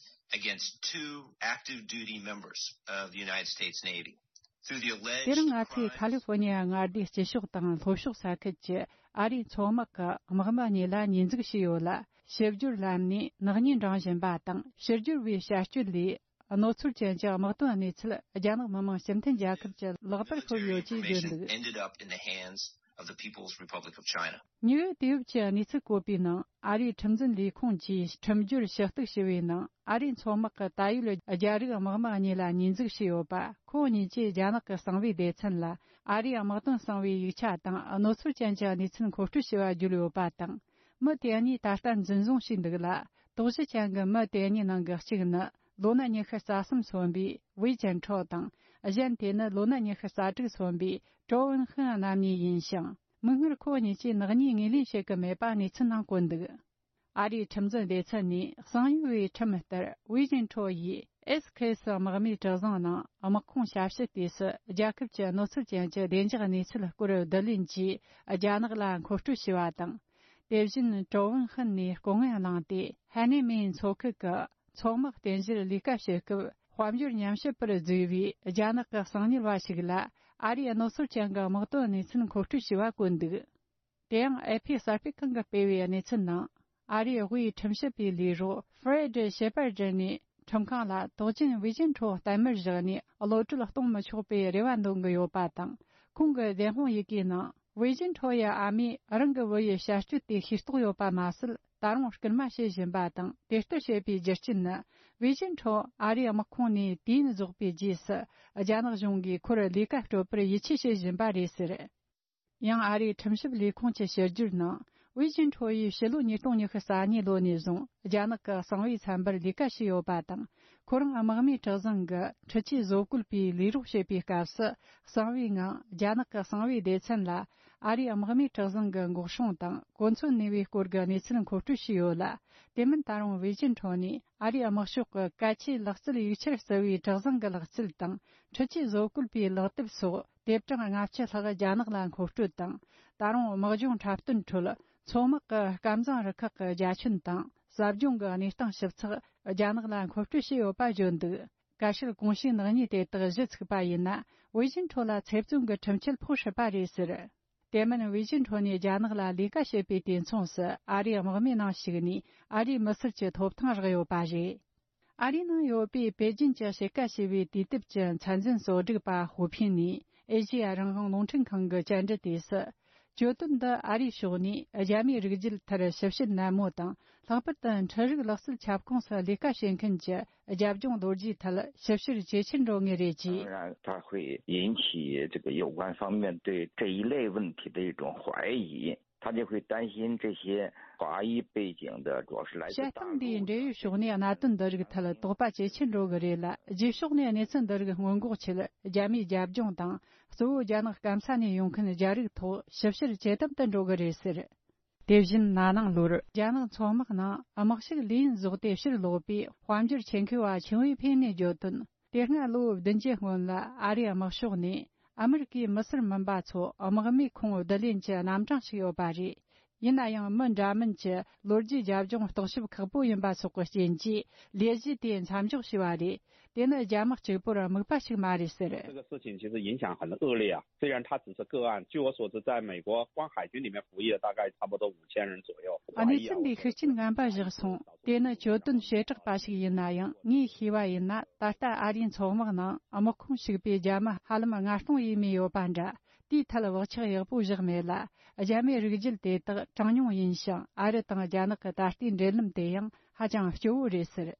against two active duty members of the United States Navy. Through the alleged crimes དེ་རིང་ང་ཚོས་ཁ་ལི་ཧྥོ་ནི་ཡ་མངའ་སྡེའི་སྤྱི་ཕྱོགས་དང་ལྷོ་ཕྱོགས་ས་ཁུལ་གྱི་ཨ་རིའི་མཚོ་དམག་གི་དམག་མི་གཉིས་ལ་ཉེས་འཛུགས་བྱས་ཡོད་ལ། ཕྱི་སྦྱོར་ལམ་ནས་ནག་ཉེས་འདྲེན་བཞིན་པ་དང་། ཕྱི་སྦྱོར་བའི་བྱ་སྤྱོད་ལས། རྣོ་ཚོར་ཅན་གྱི་དམག་དོན་གནས་ཚུལ་རྒྱ་ནག་མི་དམངས་སྤྱི་མཐུན་རྒྱལ་ཁབ་ཀྱི་ལག་པར་ཤོར་ཡོད་ཅེས་བརྗོད་འདུག། Military information ended up in the hands of the People's Republic of China. ཉེ་བའི་དུས་བབ་ཀྱི་གནས་ཚུལ་བཀོད་པའི་ནང་། ཨ་རིའི་ཁྲིམས་འཛིན་ལས་ཁུངས་ཀྱིས་ཁྲིམས་སྦྱོར་ཞུ་གཏུག་ཞུ་བའི་ནང་། ཨ་རིའི་མཚོ་དམག་གི་ད་ཡོད་རྒྱ་རིགས་དམག་མི་གཉིས་ལ་ཉེས་འཛུགས་བྱས་ཡོད་པ། ཁོང་གཉིས་ཀྱིས་རྒྱ་ནག་གི་གསང་བའི་སྡེ་ཚན་ལ་ཨ་རིའི་དམག་དོན་གསང་བའི་ཡིག་ཆ་དང་གནོད་འཚེ་ཅན་གྱི་གནས་ཚུལ་མཁོ་སྤྲོད་བྱས་པ་བརྗོད་ཡོད་པ་དང་། མི་དེ་གཉིས་ད་ལྟ་འཛིན་བཟུང་བྱས་འདུག་ལ། དོགས་གཞི་ཅན་གྱི་མི་དེ་གཉིས་ནང་གི་གཅིག་ནི་ལོ་ན་ཉི་ཤུ་རྩ་གསུམ་སོན་པའི་ཝེ་ཅན་ཁྲོ་དང་། གཞན་དེ་ནི་ལོ་ན་ཉི་ཤུ་རྩ་དྲུག་སོན་པའི་ཀྲོ་ཝུན་ཧན་རྣམ་གཉིས་ཡིན་ཞིང་། མིག་སྔར་ཁོ་གཉིས་ཀྱིས་ནག་ཉེས་ངོས་ལེན་བྱེད་ཀྱི་མེད་པ་གནས་ཚུལ་ནང་བཀོད་འདུག་ཨ་རིའི་ཁྲིམས་འཛིན་སྡེ་ཚན་ནས་གསང་ཡུལ་བའི་ཁྲིམས་ལྟར། ཝེ་ཅིན་ཁྲོ་ཡིས་ཨེས་ཁེ་སི་དམག་མིའི་གྲུ་གཟིངས་ནང་དམག་ཁོངས་ཞབས་ཞུ་དུས་སུ། རྒྱལ་ཁབ་ཀྱི་གནོད་འཚེ་ཅན་གྱི་བདེ་འཇགས་གནས་ཚུལ་སྐོར་བསྡུ་ལེན་གྱིས་རྒྱ་ནག་ལ་མཁོ་སྤྲོད་བྱས་པ་དང་། དེ་བཞིན་ཀྲོ་ཝུན་ཧན་ནས་སྐུ་ངལ་བླངས་ཏེ། ཧ་ནེ་མེན་མཚོ་ཁུལ་གྱི་མཚོ་དམག་རྟེན་གཞིར་ལས་ཀ་བྱེད་སྐབས། དཔལ་འབྱོར་ཉམས་ཞིབ་པར་བརྫུས་པའི་རྒྱ་ནག་གི་གསང་ཉུལ་བ་ཞིག་ལ། ཨ་རིའི་གནོད་འཚེ་ཅན་གྱི་དམག་དོན་གནས་ཚུལ་མཁོ་སྤྲོད་བྱས་པ་བཀོད་འདུག་དེ་ཡང་ཨེ་ཕི་གསར་སྤེལ་ཁང་གིས་སྤེལ་བའི་གནས་ཚུལ་ནང་། ཨ་རིའི་དབུས་ཁྲིམས་ཞིབ་པའི་ལས་རོགས་ཧྥེ་རེད་ཤེ་པར་ཌི་ནས་ཁྲིམས་ཁང་ལ་དོགས་ཅན་ཝེ་ཅིན་ཁྲོ་གཏའ་མར་བཞག་ནས་གློད་གྲོལ་གཏོང་མི་ཆོག་པའི་རེ་བ་འདོན་གྱི་ཡོད་པ་དང་། ཁོང་གི་བདེན་དཔང་ཡི་གེའི་ནང་། ཝེ་ཅིན་ཁྲོ་ཡི་ཨ་མས་རང་གི་བུ་ཡི་བྱ་སྤྱོད་དེ་ཤེས་རྟོགས་ཡོད་པ་མ་ཟད། ད་རུང་སྐུལ་མ་བྱེད་བཞིན་པ་དང་། དེ་ལྟར་བྱེད་པའི་རྒྱུ་རྐྱེན་ནི། ཝེ་ཅིན་ཁྲོ་ཨ་རིའི་དམག་ཁོངས་ནས་དུས་ཡུན་རྫོགས་པའི་རྗེས་སུ། རྒྱ་ནག་གཞུང་གིས་ཁོར་ལས་ཀ་སྤྲོད་པར་ཡིད་ཆེས་བྱེད་བཞིན་པ་རེད་ཟེར། ཡང་ཨ་རིའི་ཁྲིམས་ཞིབ་ལས་ཁུངས་ཀྱི་ཕྱི་བསྒྱུར་ནང་། ཝེ་ཅིན་ཁྲོ་ཡིས་ཕྱི་ལོ་ཉིས་སྟོང་ཉི་ཤུ་རྩ་གཉིས་ལོ་ནས་བཟུང་རྒྱ་ནག་གི་གསང་བའི་ཚན་པར་ལས་ཀ་བྱས་ཡོད་པ་དང་། ཁོ་རང་དམག་མིའི་གྲུ་གཟིངས་ཀྱི་འཕྲུལ་ཆས་བཟོ་བཀོད་པའི་ལས་རོགས་བྱེད་པའི་སྐབས་སུ། གསང་བའི་ངང་རྒྱ་ནག་གི་གསང་བའི་སྡེ་ཚན་ལ་ཨ་རིའི་དམག་མིའི་གྲུ་གཟིངས་ཀྱི་འགོག་སྲུང་དང་གོ་མཚོན་ནུས་པའི་སྐོར་གྱི་གནས་ཚུལ་མཁོ་སྤྲོད་བྱས་ཡོད་ལ། དེ་མིན་ད་རུང་ཝེ་ཅིན་ཁྲོ་ནས་ཨ་རིའི་དམག་ཤོག་གི་གལ་ཆེའི་ལག་རྩལ་ཡིག་ཆར་བརྩི་བའི་གྲུ་གཟིངས་ཀྱི་ལག་རྩལ་དང་། འཕྲུལ་ཆས་བཟོ་བཀོད་པའི་ལག་དེབ་སོགས། དེབ་གྲངས་ལྔ་བཅུ་ལྷག་རྒྱ་ནག་ལ་མཁོ་སྤྲོད་དང་། ད་རུང་དམག་སྦྱོང་འཁྲབ་སྟོན་ཁྲོད། མཚོ་དམག་གི་སྐམ་གཟིངས་རུ་ཁག་གི་རྒྱ་ཁྱོན་དང་། ཟབ་སྦྱོང་གི་གནས་སྟངས་ཞིབ་ཚགས་རྒྱ་ནག་ལ་མཁོ་སྤྲོད་བྱས་ཡོད་པ་བརྗོད་འདུག་བཀའ་ཤག་གོང་ཞུས་ནག་ཉེས་དེ་དག་གཞི་ཚུགས་པ་ཡིན་ན། ཝེ་ཅིན་ཁྲོ་ལ་ཚེ་བཙོན་གྱི་ཁྲིམས་ཆད་ཕོག་སྲིད་པ་རེད་ཟེར། དེ་མིན་ཝེ་ཅིན་ཁྲོ་ནས་རྒྱ་ནག་ལ་ལས་ཀ་བྱེད་པའི་དུས་མཚུངས་སུ། ཨ་རིའི་དམག་མིའི་ནང་ཞུགས་ནས་ཨ་རིའི་མི་སེར་གྱི་ཐོབ་ཐང་རག་ཡོད་པ་རེད། ཨ་རིའི་ནང་ཡོད་པའི་པེ་ཅིན་གྱི་དཔྱིད་ཀ་ཞེས་པའི་དུས་དེབ་ཀྱི་མཚན་འཛིན་གཙོ་སྒྲིག་པ་ཧུའུ་ཕིན་ནས་ཨེ་ཤེ་ཡ་རང་དབང་རླུང་འཕྲིན་ཁང་གི་བཅར་འདྲི་དུས་སུ། གྱོད་དོན་འདི་ཨ་རིའི་ཕྱོགས་ནས་རྒྱ་མིའི་རིགས་རྒྱུད་མཐར་ཞིབ་བཤེར་ནན་མོ་དང་། ལྷག་པར་དུ་འཕྲུལ་རིག་ལག་རྩལ་ཁྱབ་ཁོངས་སུ་ལས་ཀ་བྱེད་མཁན་གྱི་རྒྱབ་ལྗོངས་ལོ་རྒྱུས་ཐད་ཞིབ་བཤེར་ཇེ་ཆེར་འགྲོ་ངེས་རེད། ཅེས། 当然，它会引起这个有关方面对这一类问题的一种怀疑。 他就会担心这些华裔背景的，主要是来自大陆的。 བཤད་སྟངས་འདིའི་འབྲེལ་ཡོད་ཕྱོགས་ནས་གནད་དོན་འདི་རིགས་ཐད་དོགས་པ་ཇེ་ཆེར་འགྲོ་གི་རེད་ལ། རྗེས་ཕྱོགས་ནས་གནས་ཚུལ་འདི་རིགས་སྔོན་འགོག་ཆེད། རྒྱ་མིའི་རྒྱབ་ལྗོངས་དང་། གཙོ་བོ་རྒྱ་ནག་སྐམ་ས་ནས་ཡོང་མཁན་རྒྱ་རིགས་ཐོག་ཞིབ་བཤེར་ཇེ་དམ་དུ་འགྲོ་གི་རེད་ཟེར། དེ་བཞིན་ན་ནིང་ལོར་རྒྱ་ནག་མཚོ་དམག་ནང་དམག་ཞུགས་ལས་ཡུན་རྫོགས་ཏེ་ཕྱིར་ལོག་པའི་དཔལ་འབྱོར་ཆེད་མཁས་པ་ཆིང་ཝེ་ཕེ་ནས་བརྗོད་དོན། དེ་སྔ་ལོ་བདུན་བརྒྱད་སྔོན་ལ་ཨ་རིའི་དམག་ཤོག་ནས་ཨ་མི་རི་ཀའི་མི་སེར་མིན་པ་ཚོ་དམག་མིའི་ཁོངས་བསྡུ་ལེན་གྱི་རྣམ་གྲངས་ཤིག་ཡོད་པ་རེད། ཡིན་ན་ཡང་མི་འདྲ་མིན་གྱི་ལོ་རྒྱུས་རྒྱབ་ལྗོངས་རྟོག་ཞིབ་ཁག་པོ་ཡིན་པ་སོགས་ཀྱི་རྐྱེན་གྱིས་ལས་གཞི་དེ་མཚམས་འཇོག་བྱས་པ་རེད། དེ་ནི་རྒྱ་དམག་གཅིག་པུར་དམིགས་པ་ཞིག་མ་རེད་ཟེར། 这个事情其实影响很恶劣啊。虽然它只是个案，据我所知，在美国光海军里面服役的大概差不多五千人左右。 གནས་ཚུལ་འདིའི་ཤུགས་རྐྱེན་ངན་པ་བཞག་སོང་། དེ་ནི་གྱོད་དོན་བྱེ་བྲག་པ་ཞིག་ཡིན་ན་ཡང་། ངས་ཤེས་པ་ཡིན་ན། ད་ལྟ་ཨ་རིའི་མཚོ་དམག་ནང་དམག་ཁོངས་ཞུགས་པའི་རྒྱ་མི་ཧ་ལམ་ལྔ་སྟོང་ཡས་མས་ཡོད་པ་འདྲ། དེའི་ཐད་བག་ཆགས་ཡག་པོ་བཞག་མེད་ལ། རྒྱ་མིའི་རིགས་རྒྱུད་དེ་དག་གྲངས་ཉུང་ཡིན་ཞིང་། ཨ་རི་དང་རྒྱ་ནག་གི་ད་ལྟའི་འབྲེལ་ལམ་དེ་ཡང་ཧ་ཅང་སྐྱོ་བོ་རེད་ཟེར།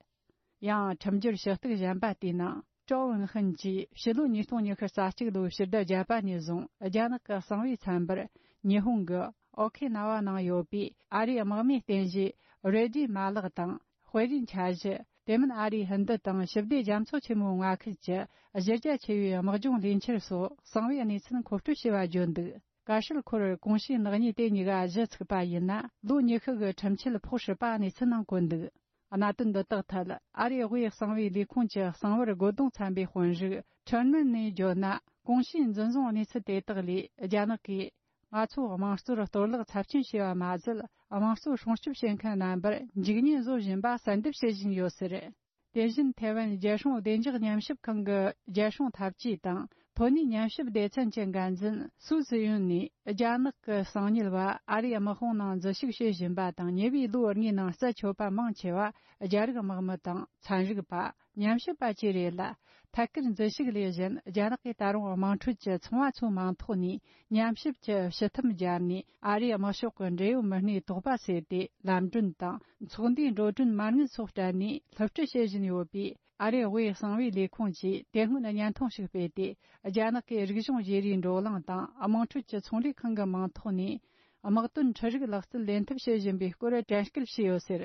ཡང་ཁྲིམས་སྦྱོར་ཞུ་གཏུག་གཞན་པ་དེའི་ནང་། ཀྲོ་ཝུན་ཧན་གྱིས་ཕྱི་ལོ་ཉིས་སྟོང་ཉི་ཤུ་རྩ་གཅིག་ལོའི་ཕྱི་ཟླ་བརྒྱད་པ་ནས་བཟུང་རྒྱ་ནག་གི་གསང་བའི་ཚན་པར་ཉི་ཧོང་གི་ཨོ་ཁེ་ན་ཝ་ནང་ཡོད་པའི་ཨ་རིའི་དམག་མིའི་རྟེན་གཞི་རེ་ཌི་མ་ལག་དང་། དཔེ་རིས་འཆར་གཞི། དེ་མིན་ཨ་རིའི་ཧིན་རྡུ་དང་ཞི་བདེ་རྒྱ་མཚོ་ཆེན་མོའི་མངའ་ཁུལ་གྱི་གཞི་རྒྱ་ཆེ་བའི་དམག་སྦྱོང་ལས་འཆར་སོགས་གསང་བའི་གནས་ཚུལ་མཁོ་སྤྲོད་བྱས་པ་བརྗོད་འདུག་བཀའ་ཤག་ཁོར་གོང་ཞུས་ནག་ཉེས་དེ་གཉིས་ཀ་གཞི་ཚུགས་པ་ཡིན་ན། ལོ་ཉི་ཤུ་གི་ཁྲིམས་ཆད་ཕོག་སྲིད་པ་གནས་ཚུལ་ནང་བཀོད་འདུག་གནད་དོན་འདི་དག་ཐད་ཨ་རིའི་དབུས་གསང་བའི་ལས་ཁུངས་ཀྱི་གསང་བར་རྒོལ་རྡུང་ཚན་པའི་དཔོན་རིགས་ཁྲེར་ནན་ནས་བརྗོད་ན། གོང་ཞུས་འཛིན་བཟུང་གནས་ཚུལ་དེ་དག་ལས་རྒྱ་ནག་གིས། ང་ཚོ་དམངས་གཙོར་གཏོར་བརླག་ཚབས་ཆེན་བྱས་པ་མ་ཟད། དམངས་གཙོ་སྲུང་སྐྱོབ་བྱེད་མཁན་རྣམ་པར་འཇིགས་ཉེན་བཟོ་བཞིན་པ་གསལ་འདེབས་བྱེད་བཞིན་ཡོད་ཟེར། དེ་བཞིན་ཐའེ་ཝན་རྒྱལ་སྲུང་བདེ་འཇགས་ཉམས་ཞིབ་ཁང་གི་རྒྱལ་སྲུང་འཐབ་ཇུས་དང་ ཐོན་ནས་ཉམས་ཞིབ་སྡེ་ཚན་གྱི་འགན་འཛིན་སུའུ་ཙི་ཡུན་ནས། རྒྱ་ནག་གི་གསང་ཉུལ་བ་ཨ་རིའི་དམག་དཔུང་ནང་འཛུལ་ཞུགས་བྱེད་བཞིན་པ་དང་། ཉེ་བའི་ལོ་ལྔའི་ནང་རྩད་ཆོད་པ་མང་ཆེ་བ་རྒྱ་རིགས་དམག་མི་དང་ཚན་རིག་པ། ཉམས་ཞིབ་པ་བཅས་རེད་ལ། ཐད་ཀར་འཛུལ་ཞུགས་ལས་གཞན། རྒྱ་ནག་གིས་ད་རུང་དམངས་ཁྲོད་ཀྱི་ཚོང་བ་ཚོའི་མིང་ཐོག་ནས་ཉམས་ཞིབ་ཀྱི་ཕྱི་ཐུམ་སྦྱར་ནས། ཨ་རིའི་དམག་ཤོག་གི་འབྲེལ་ཡོད་མི་སྣའི་དོགས་པ་སེལ་ཏེ། ལམ་གྲོན་དང་ཚོགས་འདུའི་འགྲོ་གྲོན་མ་དངུལ་སོགས་སྤྲད་ནས་སླུ་བྲིད་བྱེད་བཞིན་ཡོད་པས། ཨ་རིའི་དབུས་གསང་བའི་ལས་ཁུངས་ཀྱིས་དེ་སྔོན་བརྙན་ཐུང་ཞིག་སྤེལ་ཏེ། རྒྱ་ནག་གིས་རིག་གཞུང་བརྗེ་རེས་འགྲོ་གླེང་དང་། དམངས་ཁྲོད་ཀྱི་ཚོང་ལས་ཁང་གི་མིང་ཐོག་ནས་དམག་དོན་འཕྲུལ་རིག་ལག་རྩལ་ལེན་ཐབས་བྱེད་བཞིན་པའི་སྐོར་དྲན་སྐུལ་བྱས་ཡོད་ཟེར།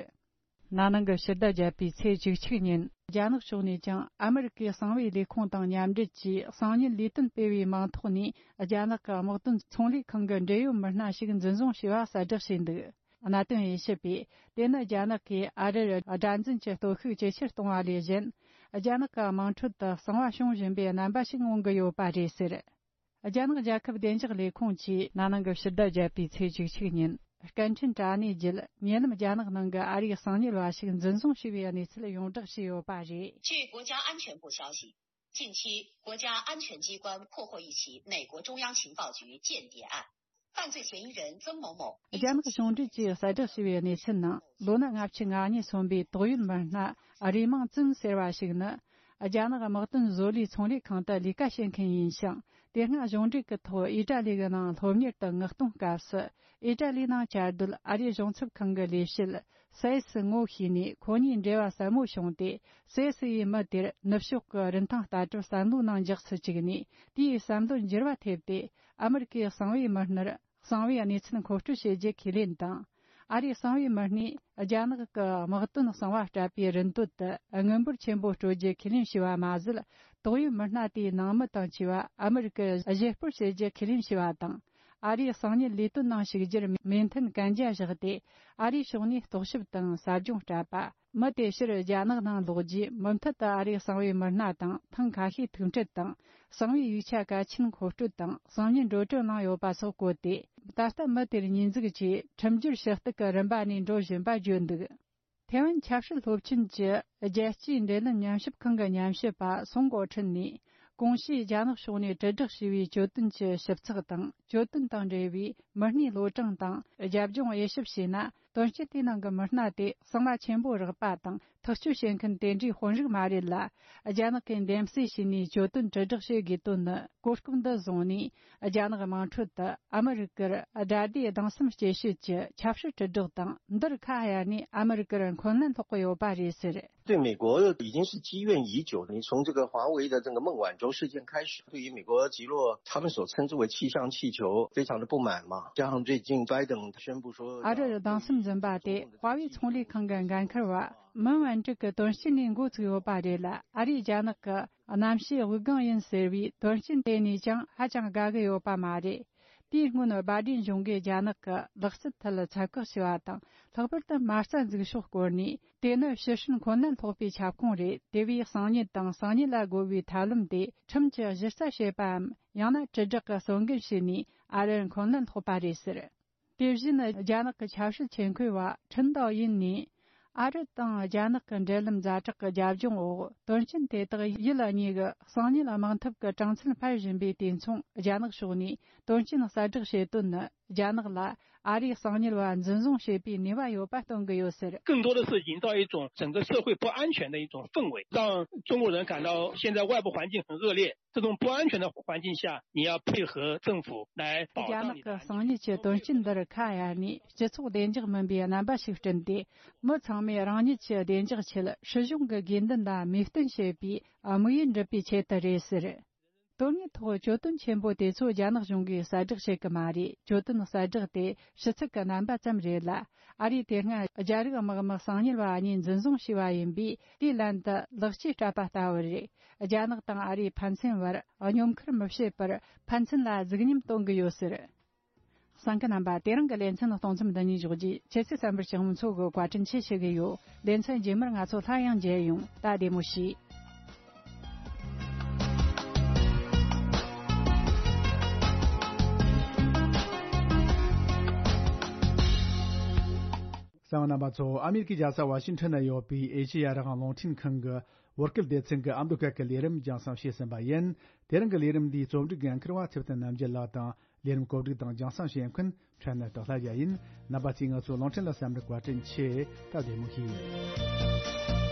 ན་ནིང་གི་ཕྱི་ཟླ་བརྒྱད་པའི་ཚེས་བཅུ་གཅིག་ཉིན། རྒྱ་ནག་ཕྱོགས་ནས་ཀྱང་ཨ་མི་རི་ཀའི་གསང་བའི་ལས་ཁུངས་དང་མཉམ་འབྲེལ་གྱིས། གསང་ཉུལ་ལས་དོན་སྤེལ་བའི་མིང་ཐོག་ནས་རྒྱ་ནག་གི་དམག་དོན་ཚོང་ལས་ཁང་གི་འབྲེལ་ཡོད་མི་སྣ་ཞིག་འཛིན་བཟུང་བྱས་པ་གསལ་བསྒྲགས་བྱས་འདུག། གནད་དོན་དབྱེ་ཞིབ་པས། དེ་ནི་རྒྱ་ནག་གིས་ཨ་རིར་དགྲར་འཛིན་གྱི་སྟོབས་ཤུགས་ཇེ་ཆེར་གཏོང་བ་ལས་གཞན། རྒྱ་ནག་གི་དམངས་ཁྲོད་དུ་གསང་བ་བྱུང་བཞིན་པའི་རྣམ་པ་ཞིག་མངོན་གྱི་ཡོད་པ་རེད་ཟེར། རྒྱ་ནག་རྒྱལ་ཁབ་བདེ་འཇགས་ལས་ཁུངས་ཀྱིས་ན་ནིང་གི་ཕྱི་ཟླ་བརྒྱད་པའི་ཚེས་བཅུ་གཅིག་ཉིན། སྐད་འཕྲིན་དྲ་གནས་བརྒྱུད། ཉེ་ལམ་རྒྱ་ནག་ནང་གི་ཨ་རིའི་གསང་ཉུལ་བ་ཞིག་འཛིན་བཟུང་བྱས་པའི་གནས་ཚུལ་ཡོངས་བསྒྲགས་བྱས་ཡོད་པ་རེད། 据国家安全部消息，近期国家安全机关破获一起美国中央情报局间谍案，犯罪嫌疑人曾某某。རྒྱ་ནག་གཞུང་འབྲེལ་གྱིས་གསལ་བསྒྲགས་བྱས་པའི་གནས་ཚུལ་ནང་། ལོ་ན་ལྔ་བཅུ་ང་གཉིས་སོན་པའི་ཏོག་དབྱིབས་མི་སྣ་རུས་མིང་ཙུན་ཟེར་བ་ཞིག་ནི། རྒྱ་ནག་དམག་དོན་བཟོ་ལས་ཚོང་ལས་ཁང་དུ་ལས་ཀ་བྱེད་མཁན་ཡིན་ཞིང་། དེ་སྔ་གཞུང་འབྲེལ་གྱི་ཐོག་ཨི་ཏྲ་ལི་གི་ནང་སློབ་གཉེར་དུ་མངགས་གཏོང་སྐབས་སུ། ཨི་ཏྲ་ལི་ནང་བཅའ་སྡོད་ཨ་རིའི་གཞུང་ཚབ་ཁང་གི་ལས་བྱེད་སའེ་སི་ངོ་ཤེས་ནས། ཁོ་གཉིས་འབྲེལ་བ་ཟབ་མོ་བྱུང་སྟེ། སའེ་སི་ཡིས་མི་དེར་ནུབ་ཕྱོགས་ཀྱི་རིན་ཐང་ལྟ་གྲུབ་བསམ་བློའི་ནང་འཇོག་སུ་བཅུག་ནས། དེའི་བསམ་བློར་འགྱུར་བ་ཐེབས་ཏེ། ཨ་མི་རི་ཀའི་གསང་བའི་མི་སྣར་གསང་བའི་གནས་ཚུལ་མཁོ་སྤྲོད་བྱེད་རྒྱུ་ཁས་ལེན་དང་། ཨ་རིའི་གསང་བའི་མི་སྣས་རྒྱ་ནག་གི་དམག་དོན་གསང་བ་སྤྲད་པའི་རིན་དོད་དུ་དངུལ་འབོར་ཆེན་པོ་སྤྲོད་རྒྱུ་ཁས་ལེན་བྱས་པ་མ་ཟད། ཏོག་དབྱིབས་མི་སྣ་དེའི་ནང་མི་དང་བཅས་པ་ཨ་མི་རི་ཀར་གཞས་སྤོར་བྱེད་རྒྱུ་ཁས་ལེན་བྱས་པ་དང་། ཨ་རིའི་གསང་ཉུལ་ལས་དོན་ནང་ཞུགས་རྒྱུར་མོས་མཐུན་གན་རྒྱ་བཞག་སྟེ། ཨ་རིའི་ཕྱོགས་ནས་རྟོག་ཞིབ་དང་ཟབ་སྦྱོང་སྤྲད་པ། མི་དེ་ཕྱིར་རྒྱ་ནག་ནང་ལོག་རྗེས། མུ་མཐུད་དུ་ཨ་རིའི་གསང་བའི་མི་སྣ་དང་ཐེངས་ཁ་ཤས་ཐུག་འཕྲད་དང་། གསང་བའི་ཡིག་ཆ་གལ་ཆེན་མཁོ་སྤྲོད་དང་གསང་ཉུལ་འགྲོ་གྲོན་གནང་ཡོད་པ་སོགས་བཀོད་དེ། ད་ལྟ་མི་དེར་ཉེས་འཛུགས་ཀྱིས་ཁྲིམས་སྒྱུར་ཞུ་གཏུག་གི་རིམ་པ་ནས་འགྲོ་བཞིན་པ་བརྗོད་འདུག། ཐེ་ཝན་ཆབ་སྲིད་སློབ་ཆེན་གྱི་རྒྱལ་སྤྱིའི་འབྲེལ་ལམ་ཉམས་ཞིབ་ཁང་གི་ཉམས་ཞིབ་པ་སུང་གོ་ཁྲིན་ནས། གོང་ཞུས་རྒྱ་ནག་ཕྱོགས་ནས་དྲིལ་བསྒྲགས་བྱས་པའི་གྱོད་དོན་གྱི་ཞིབ་ཚགས་དང་། གྱོད་དོན་དང་འབྲེལ་བའི་མི་སྣའི་ལོ་གྲངས་དང་རྒྱབ་ལྗོངས་དབྱེ་ཞིབ་བྱས་ན། དོན་རྐྱེན་དེའི་ནང་གི་མི་སྣ་དེ་གསང་བ་ཆེན་པོ་རག་པ་དང་ཐག་གཅོད་བྱེད་མཁན་དེ་འདྲའི་དཔོན་རིགས་མ་རེད་ལ། རྒྱ་ནག་གིས་འདེམས་གསེས་བྱས་ནས་གྱོད་དོན་དྲིལ་བསྒྲགས་བྱེད་དགོས་དོན་ནི། གོ་སྐབས་འདི་བཟུང་ནས། རྒྱ་ནག་དམངས་ཁྲོད་དུ་ཨ་མི་རི་ཀར་དགྲ་ཟླའི་སྡང་སེམས་སྐྱེ་བྱེད་ཀྱི་ཆབ་སྲིད་དྲིལ་བསྒྲགས་དང་། འདིར་ཁ་གཡར་ནས་ཨ་མི་རི་ཀར་འཁོན་ལན་སློག་གི་ཡོད་པ་རེད་ཟེར། 对美国已经是积怨已久。你从这个华为的这个孟晚舟事件开始，对于美国击落他们所称之为气象气球，非常的不满嘛。加上最近拜登宣布说，ཨ་རིར་སྡང་སེམས་འཛིན་པ་དེ། ཧྭ་ཝེ་ཚོང་ལས་ཁང་གི་འགན་འཁུར་བ་མན་ཝན་ཀྲིག་གི་དོན་རྐྱེན་ནས་འགོ་ཚུགས་ཡོད་པ་རེད་ལ། ཨ་རིས་རྒྱ་ནག་གི་གནམ་གཤིས་དབུགས་ལྒང་ཡིན་ཟེར་བའི་དོན་རྐྱེན་དེ་ནས་ཀྱང་ཧ་ཅང་དགའ་གི་ཡོད་པ་མ་རེད། དེའི་སྔོན་བྷའི་ཌེན་གཞུང་གིས་རྒྱ་ནག་གི་ལག་རྩལ་ཐད་ཚད་བཀག་བྱས་པ་དང་། ལྷག་པར་དུ་མ་རྩ་འཛུགས་ཕྱོགས་སྐོར་ནས། དེ་ནི་ཕྱི་ཧྲིན་འཁོན་ལན་སློག་པའི་ཁྱབ་ཁོངས་རེད། དེ་བས་གསང་ཉུལ་དང་གསང་ཉུལ་ལ་རྒོལ་བའི་ཐབས་ལམ་དེ་ཁྲིམས་ཀྱི་གཞི་རྩ་བྱེད་པའམ། ཡང་ན་དྲིལ་བསྒྲགས་ཀྱི་གསོག་འགན་བྱས་ནས་ཨ་རིར་འཁོན་ལན་སློག་པ་རེད་ཟེར། དེ་བཞིན་རྒྱ་ནག་གི་ཆབ་སྲིད་ཆེད་མཁས་པ་ཁྲིན་ཏའོ་ཡིན་ནས། ཨ་རི་དང་རྒྱ་ནག་གི་འབྲེལ་ལམ་ཛ་དྲག་གི་རྒྱབ་ལྗོངས་འོག་དོན་རྐྱེན་དེ་དག་ཡུལ་གཉིས་ཀྱི་གསང་ཉུལ་དམག་འཐབ་ཀྱི་གྲངས་ཚད་འཕར་བཞིན་པའི་དུས་མཚུངས། རྒྱ་ནག་ཕྱོགས་ནས་དོན་རྐྱེན་གསལ་བསྒྲགས་བྱེད་དོན་ནི། རྒྱ་ནག་ལ་ཨ་རིའི་གསང་ཉུལ་བ་འཛིན་བཟུང་བྱེད་པའི་ནུས་པ་ཡོད་པ་སྟོན་གྱི་ཡོད་ཟེར། 更多的是营造一种整个社会不安全的一种氛围，让中国人感到现在外部环境很恶劣，这种不安全的环境下，你要配合政府来保障你的安全。 རྒྱ་ནག་གི་གསང་ཉུལ་གྱི་དོན་རྐྱེན་འདིར་ཁ་གཡར་ནས། སྤྱི་ཚོགས་བདེ་འཇགས་མིན་པའི་རྣམ་པ་ཞིག་བསྐྲུན་ཏེ། མི་ཚང་མས་རང་ཉིད་ཀྱི་བདེ་འཇགས་ཆེད་སྲིད་གཞུང་གི་དགོས་འདུན་ལ་མོས་བསྟུན་བྱེད་པའི་དམིགས་ཡུལ་འགྲུབ་པའི་ཆེད་དུ་རེད་ཟེར། དོན་དངོས་ཐོག་གྱོད་དོན་ཆེན་པོ་དེ་ཚོ་རྒྱ་ནག་གཞུང་གིས་གསལ་བསྒྲགས་བྱེད་ཀྱི་མ་རེད། གྱོད་དོན་གསལ་བསྒྲགས་དེ་ཕྱི་ཚུལ་གྱི་རྣམ་པ་ཙམ་རེད་ལ། ཨ་རིས་དེ་སྔ་རྒྱ་རིགས་དམག་མི་གསང་ཉུལ་བ་གཉིས་འཛིན་བཟུང་བྱས་པ་ཡིན་པས། དེའི་ལན་དུ་ལག་ཆས་སྤྲད་པ་ལྟ་བུ་རེད། རྒྱ་ནག་དང་ཨ་རིའི་ཕན་ཚུན་བར་སྙོམ་ཁུར་མི་བྱེད་པར་ཕན་ཚུན་ལ་གཟིགས་ཉམས་སྟོན་གྱི་ཡོད་ཟེར། གསན་མཁན་རྣམ་པ། དེ་རིང་གི་ལེ་ཚན་གཏོང་མཚམས་འདི་ནས་འཇོག་རྒྱུ། ཁྱེད་ཚོས་གསན་པར་སྤྱི་ཡོངས་ཚོ་གི་བཀའ་དྲིན་ཆེ་ཞུ་གི་ཡོད། ལེ་ཚན་རྗེས་མར་ང་ཚོ་སླར་ཡང་མཇལ་ཡོང་། ད་བདེ་མོ་བྱོས། གསན་པ་རྣམ་པ་ཚོ། ཨ་མེ་རི་ཀའི་རྒྱལ་ས་ཝ་ཤིང་ཊོན་ན་ཡོད་པའི་ཨེ་ཤེ་ཡ་རང་དབང་རླུང་འཕྲིན་ཁང་གི་ བོད་སྐད་སྡེ་ཚན་གྱི་ཨ་མདོ་སྐད་ཀྱི་ལས་རིམ་རྒྱང་སྲིང་བྱས་ཟིན་པ་ཡིན། དེ་རིང་གི་ལས་རིམ་འདིའི་རྩོམ་སྒྲིག་འགན་འཁུར་བ་ཚེ་བརྟན་རྣམ་རྒྱལ་ལགས་དང་། ལས་རིམ་གོ་སྒྲིག་དང་རྒྱང་སྲིང་བྱེད་མཁན་ཕྲན་ནི་དོ་ལྷ་རྒྱལ་ཡིན། རྣམ་པ་ཚོས་ང་ཚོའི་རླུང་འཕྲིན་ལ་གསན་པར་བཀའ་དྲིན་ཆེ། སྟབས་བདེ་མོ་བྱོས།